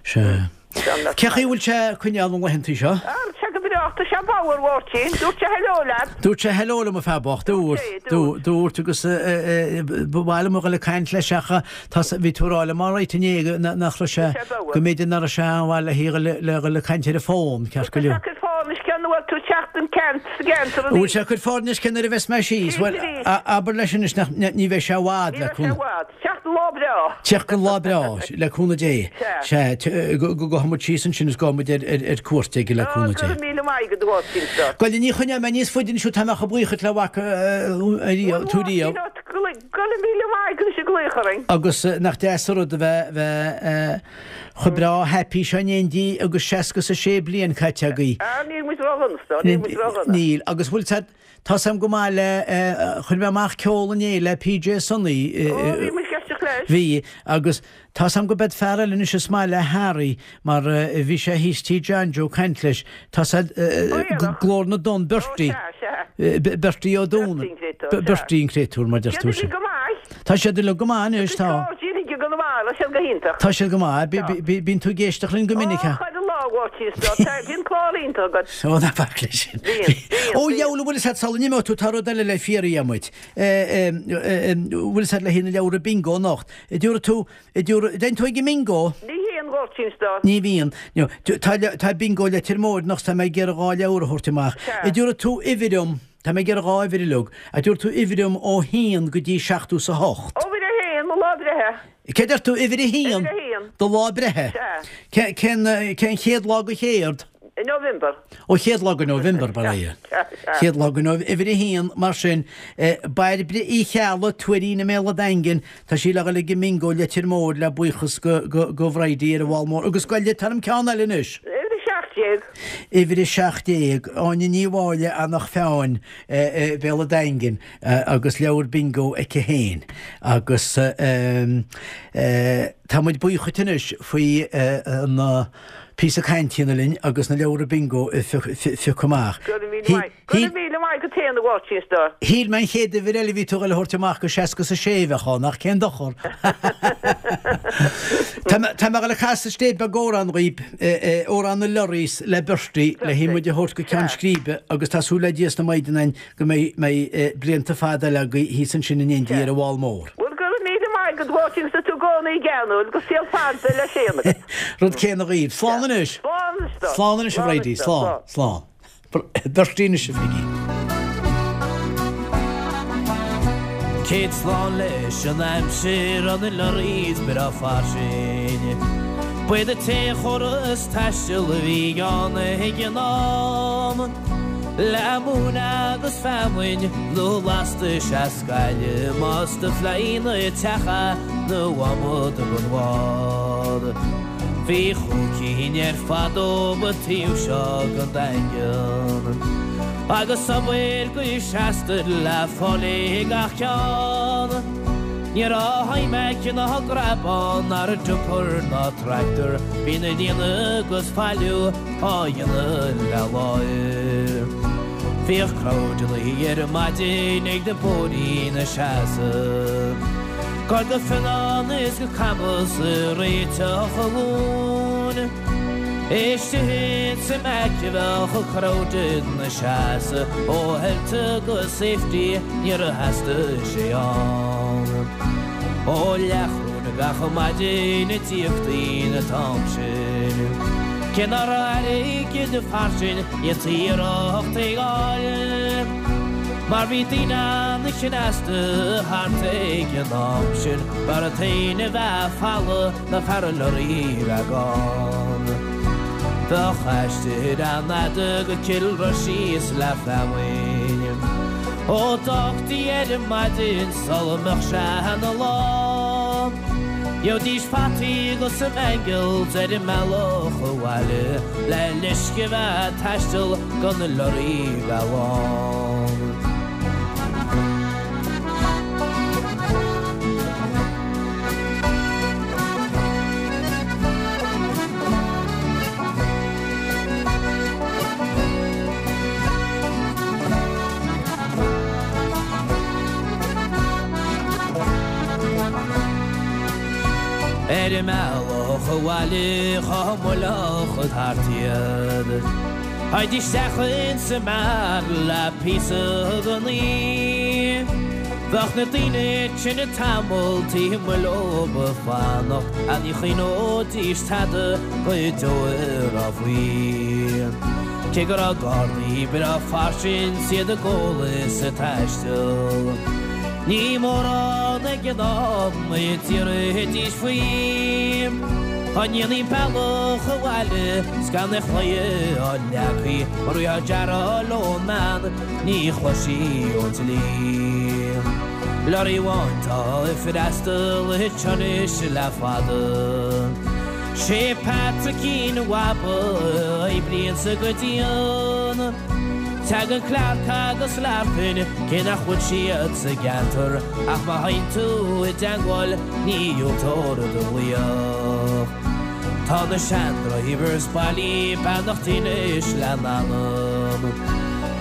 Sea. D'fhan mé sa Cé chaoi mbaile. bhfuil sé ag coinneáil na laethantaí seo? Á, tá sé go breá, tá sé bodhar, a Mháirtín. Dúirt sé hello leat. Dúirt sé hello liom, a fear bocht, dúirt. Dúirt sé, dúirt. Dúirt agus ba mhaith liom a dhul ag caint leis ach tá, bhí tú ag rá liom alright inné nach raibh sé, Bhí sé bodhar. go mb'fhéidir nach raibh sé an-mhaith le le dhul ag caint ar an bhfón, ceart go Tá sé leor. ag cur foirne cén uair tú teacht an ceant sa gceantar Bhfuil arís. sé ag cur foirne cén uair a bheas mé síos? Bhuel, abair leis anois nach, ní bheidh sé i bhfad Ní le bheidh sé i bhfad. Teacht an lá breá. Teacht an lá breá, le cúnamh Dé. Sea. Sea, go gabhfaidh muid síos ansin is gabhfaidh muid ar cuairt aige le cúnamh Go Dé. raibh míle maith agat a Mháirtín seo. Gabh i leith, ní choinneoidh mé níos faide anois thú, tá mé chomh buíoch le bhfaca tú riamh. Go raibh míle maith agat as an glaoch orainn. Agus nach deas an rud a bheith, bheith chomh breá happy seo in éindí agus 66 bliain caite agaibh. Ah, níl muid ródhona, a stór, níl muid ródhona. Níl, agus bhfuil said, tá 's a'm go maith le, chuir mé amach ceol inné le PJ Sonny. Ó, bhí muid ag éisteacht leis. Bhí, agus tá 's a'm go beid fear eile anois is maith le Harry mar bhí sé thíos tí John Joe caint leis, tá said, Glór na dTonn, Bertie. Ó, sea, sea. Bertie Ó Dúna. Bertie an créatúr, sea. Bertie an créatúr, mar deir tú. Siad uilig go maith. Tá siad uilig go maith anois, tá. Tá siad uilig go maith, tá siad go hiontach. Tá siad go maith. Bíonn tú ag éisteacht linn go minic, Ó, chuile lá, a Mháirtín, is dóigh. Tá, bíonn clár iontach agat. Ó, ná bac leis sin. Bíonn, bíonn, Ó, dheabhail, an bhfuil 'fhios a'd sula n-imeoidh tú, tá rud eile le fiafraí uait. Bhfuil 'fhios a'd le haghaidh na leabhra bingo anocht. Dtiúrfaidh tú, dtiúrfaidh, dtéann tú ag an mbingo? Ní théann, a Mháirtín, is dóigh. Ní bhíonn. No, tá, tá bingo Leitir Móir anocht, tá mé ag iarraidh dhá leabhar a thabhairt amach. Sea. Dtiúrfaidh tú uimhir dom, tá mé ag iarraidh dhá uimhir uilig, a dtiúrfaidh tú uimhir dom ó haon go dtí seachtó 's a hocht. Uimhir a haon, mo lá breithe. Cé deir tú, uimhir a haon? Uimhir a haon. Do lá breithe. Sea. Cén, cén chéad lá go chéard? November. Ó chéad lá go November, bail ó Dhia. Chéad lá go November, uimhir a haon, mar sin, Bairbre Uí Cheallaigh, Tuairín i mBéal an Daingin, tá sí le dhul ag an mbingo Leitir Móir le buíochas go, go, go Bhridie ar an bhFál Mór. Agus gabh i leith, tá orm ceann eile anois. Uimhir a 17. Uimhir a 17, Áine Ní Mháille, Eanach Mheáin, Béal an Daingin, agus leabhar bingo aici féin. Agus tá muid buíoch dhuit anois faoi an píosa cainte a dhéanamh linn agus na leabhra bingo a phiocadh amach. Go raibh míle maith. Go raibh míle maith agat féin a Mháirtín a stór. Shíl mé an chéad uimhir eile a bhí tú ag dul a thabhairt amach go 66 a bheadh ann, ach cén dochar? Tá mé ag dul ag casadh stéip beag amhrán dhaoib, Amhrán na Lorries le Bertie, le haghaidh muid a thabhairt go ceann scríbe agus tá súil le Dia is na Maighdine a'inn go mbeidh blianta fada eile agaibh thíos ansin in éindí ar an bhFál Mór. Bhuel, go raibh míle maith agat, a Mháirtín, agus tú i gcónaí geanúil, agus saol fada le Séan agat. Rud céanna dhaoibh. Slán anois! Slán anois dó. Slán anois, a Bhridie. Slán. Slán. Bertie anois, a Pheigí. Céad slán leis an aimsir, on the lorries breá fairsing. B'iad an t-aon chóras taistil a bhí ann ag an am. Le móin agus feamainn nó lastais as Gaillimh más do phlean an teach é nó adhmad don bhád. Bhí chúig cinn ar fad dóibh an taobh seo den Daingean. Agus obair go seasta le fáil ag gach ceann. Ní raibh iMac ná grabán ná dumper ná tractor, bhí na líonadh agus pailiú á dhéanamh le láimh. Bhíodh crowdanna ar maidin ag na bóithrí ina seasamh. Ag dul go Fionnán is go Camas ag réiteach an mhóin. Istigh insa Mac a bheadh an crowd ina seasamh ó health go safety níor theastaigh sé ann. Ó leathdhrún gach maidin a d'íoctaí an t-am sin. Cé nach raibh airgead fairsing dhéantaí iarracht é fháil. Mar bhí daoine an-chneasta thart ag an am sin, b'fhearr an t-éan a bheith folamh ná fear an lorry bheith gann. Bheadh aistear an-fhada go Cill Rois síos le feamainn. Ó d'fhágtaí ar maidin sula mbeadh sé ina lá. Gheobhaidís fataí agus some mangels ar an mbealach abhaile le leisce bheith ag taisteal gan na lorraí bheith lán. Ar an mbealach abhaile chomh moilleach thart iad. Théidís isteach insa mbeár le píosa den aoi. Bheadh na daoine tinn tamall taobh amuigh leob ag fanacht ach ní chuimhneoidís tada go deo a raibh faoi. Cé go raibh gardaí breá fairsing 's iad ag ól is ag taisteal. Ní mórán ag an am a d'iarrfaidís faoi. Dá ndéanfaí an bealach abhaile 's gan aon chlaí á leagthaí mura raibh gearán ón mbean ní chloisfí ón dlí. Lorry amháin tá ag freastal anseo anois le fada. Sé Patrickín Bhaba a oibríonn go dian. Tagann Clarke agus Larkin cé nach bhfuil siad sa gceantar ach má théann tú i dteangmháil ní dhiúltófar do ghlaoch. Tá na sean-drivers bailí beannacht anois lena n-anam.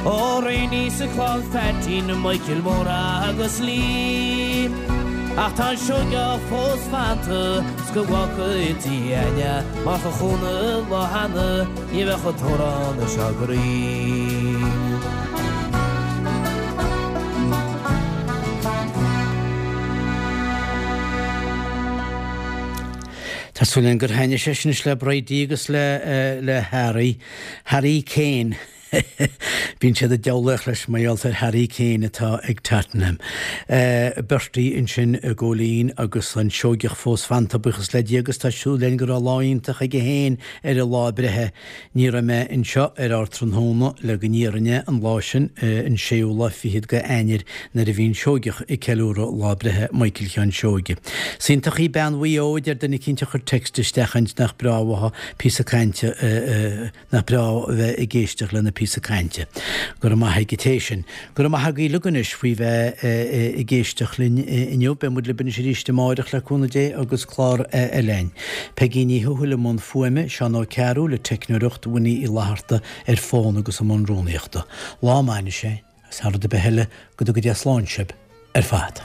Ó Rainey sa chlann Pheaitín, Michael Mór agus Lee. Ach tá an Seoigeach fós fanta 's go bhfágfaidh Dia againne mar cha chúnamh lá cheana ní bheadh an t-amhrán seo grinn. Tá súil againn gur thaitnigh sé sin anois le Bridie agus le le Harry, Harry Kane. Bíonn siad ag diabhlaíocht leis mar gheall ar Harry Kane atá ag Tottenham. Bertie ansin i gCóilín agus an Seoigeach fós fanta, buíochas le Dia agus tá súil againn go raibh lá iontach aige féin ar a lá breithe. Ní raibh mé anseo ar Ardtráthnóna le go n-iarrainn an lá sin, an séú lá fichead de Eanáir nuair a bhí an Seoigeach ag ceiliúradh lá breithe Michael Sheáin Seoige. Is iontach í bean Mhaigh Eo a deir duine eicínt a chuir text isteach ansin nach breá uathu píosa cainte a Nach breá a bheith ag éisteacht lena píosa cainte. Go raibh maith ag an té sin. Go raibh maith agaibh uilig anois faoi bheith ag éisteacht linn inniu. Beidh muid libh anois arís amáireach le cúnamh Dé agus clár eile againn. Peigí Ní Thuathail i mbun fuaime, Seán Ó Cearúil ag teicneoireacht, Winnie Uí Fhlatharta ar fón agus i mbun rúnaíochta. Lá maith anois é, agus thar rud ar bith eile, go dtuga Dia slán sibh ar fad.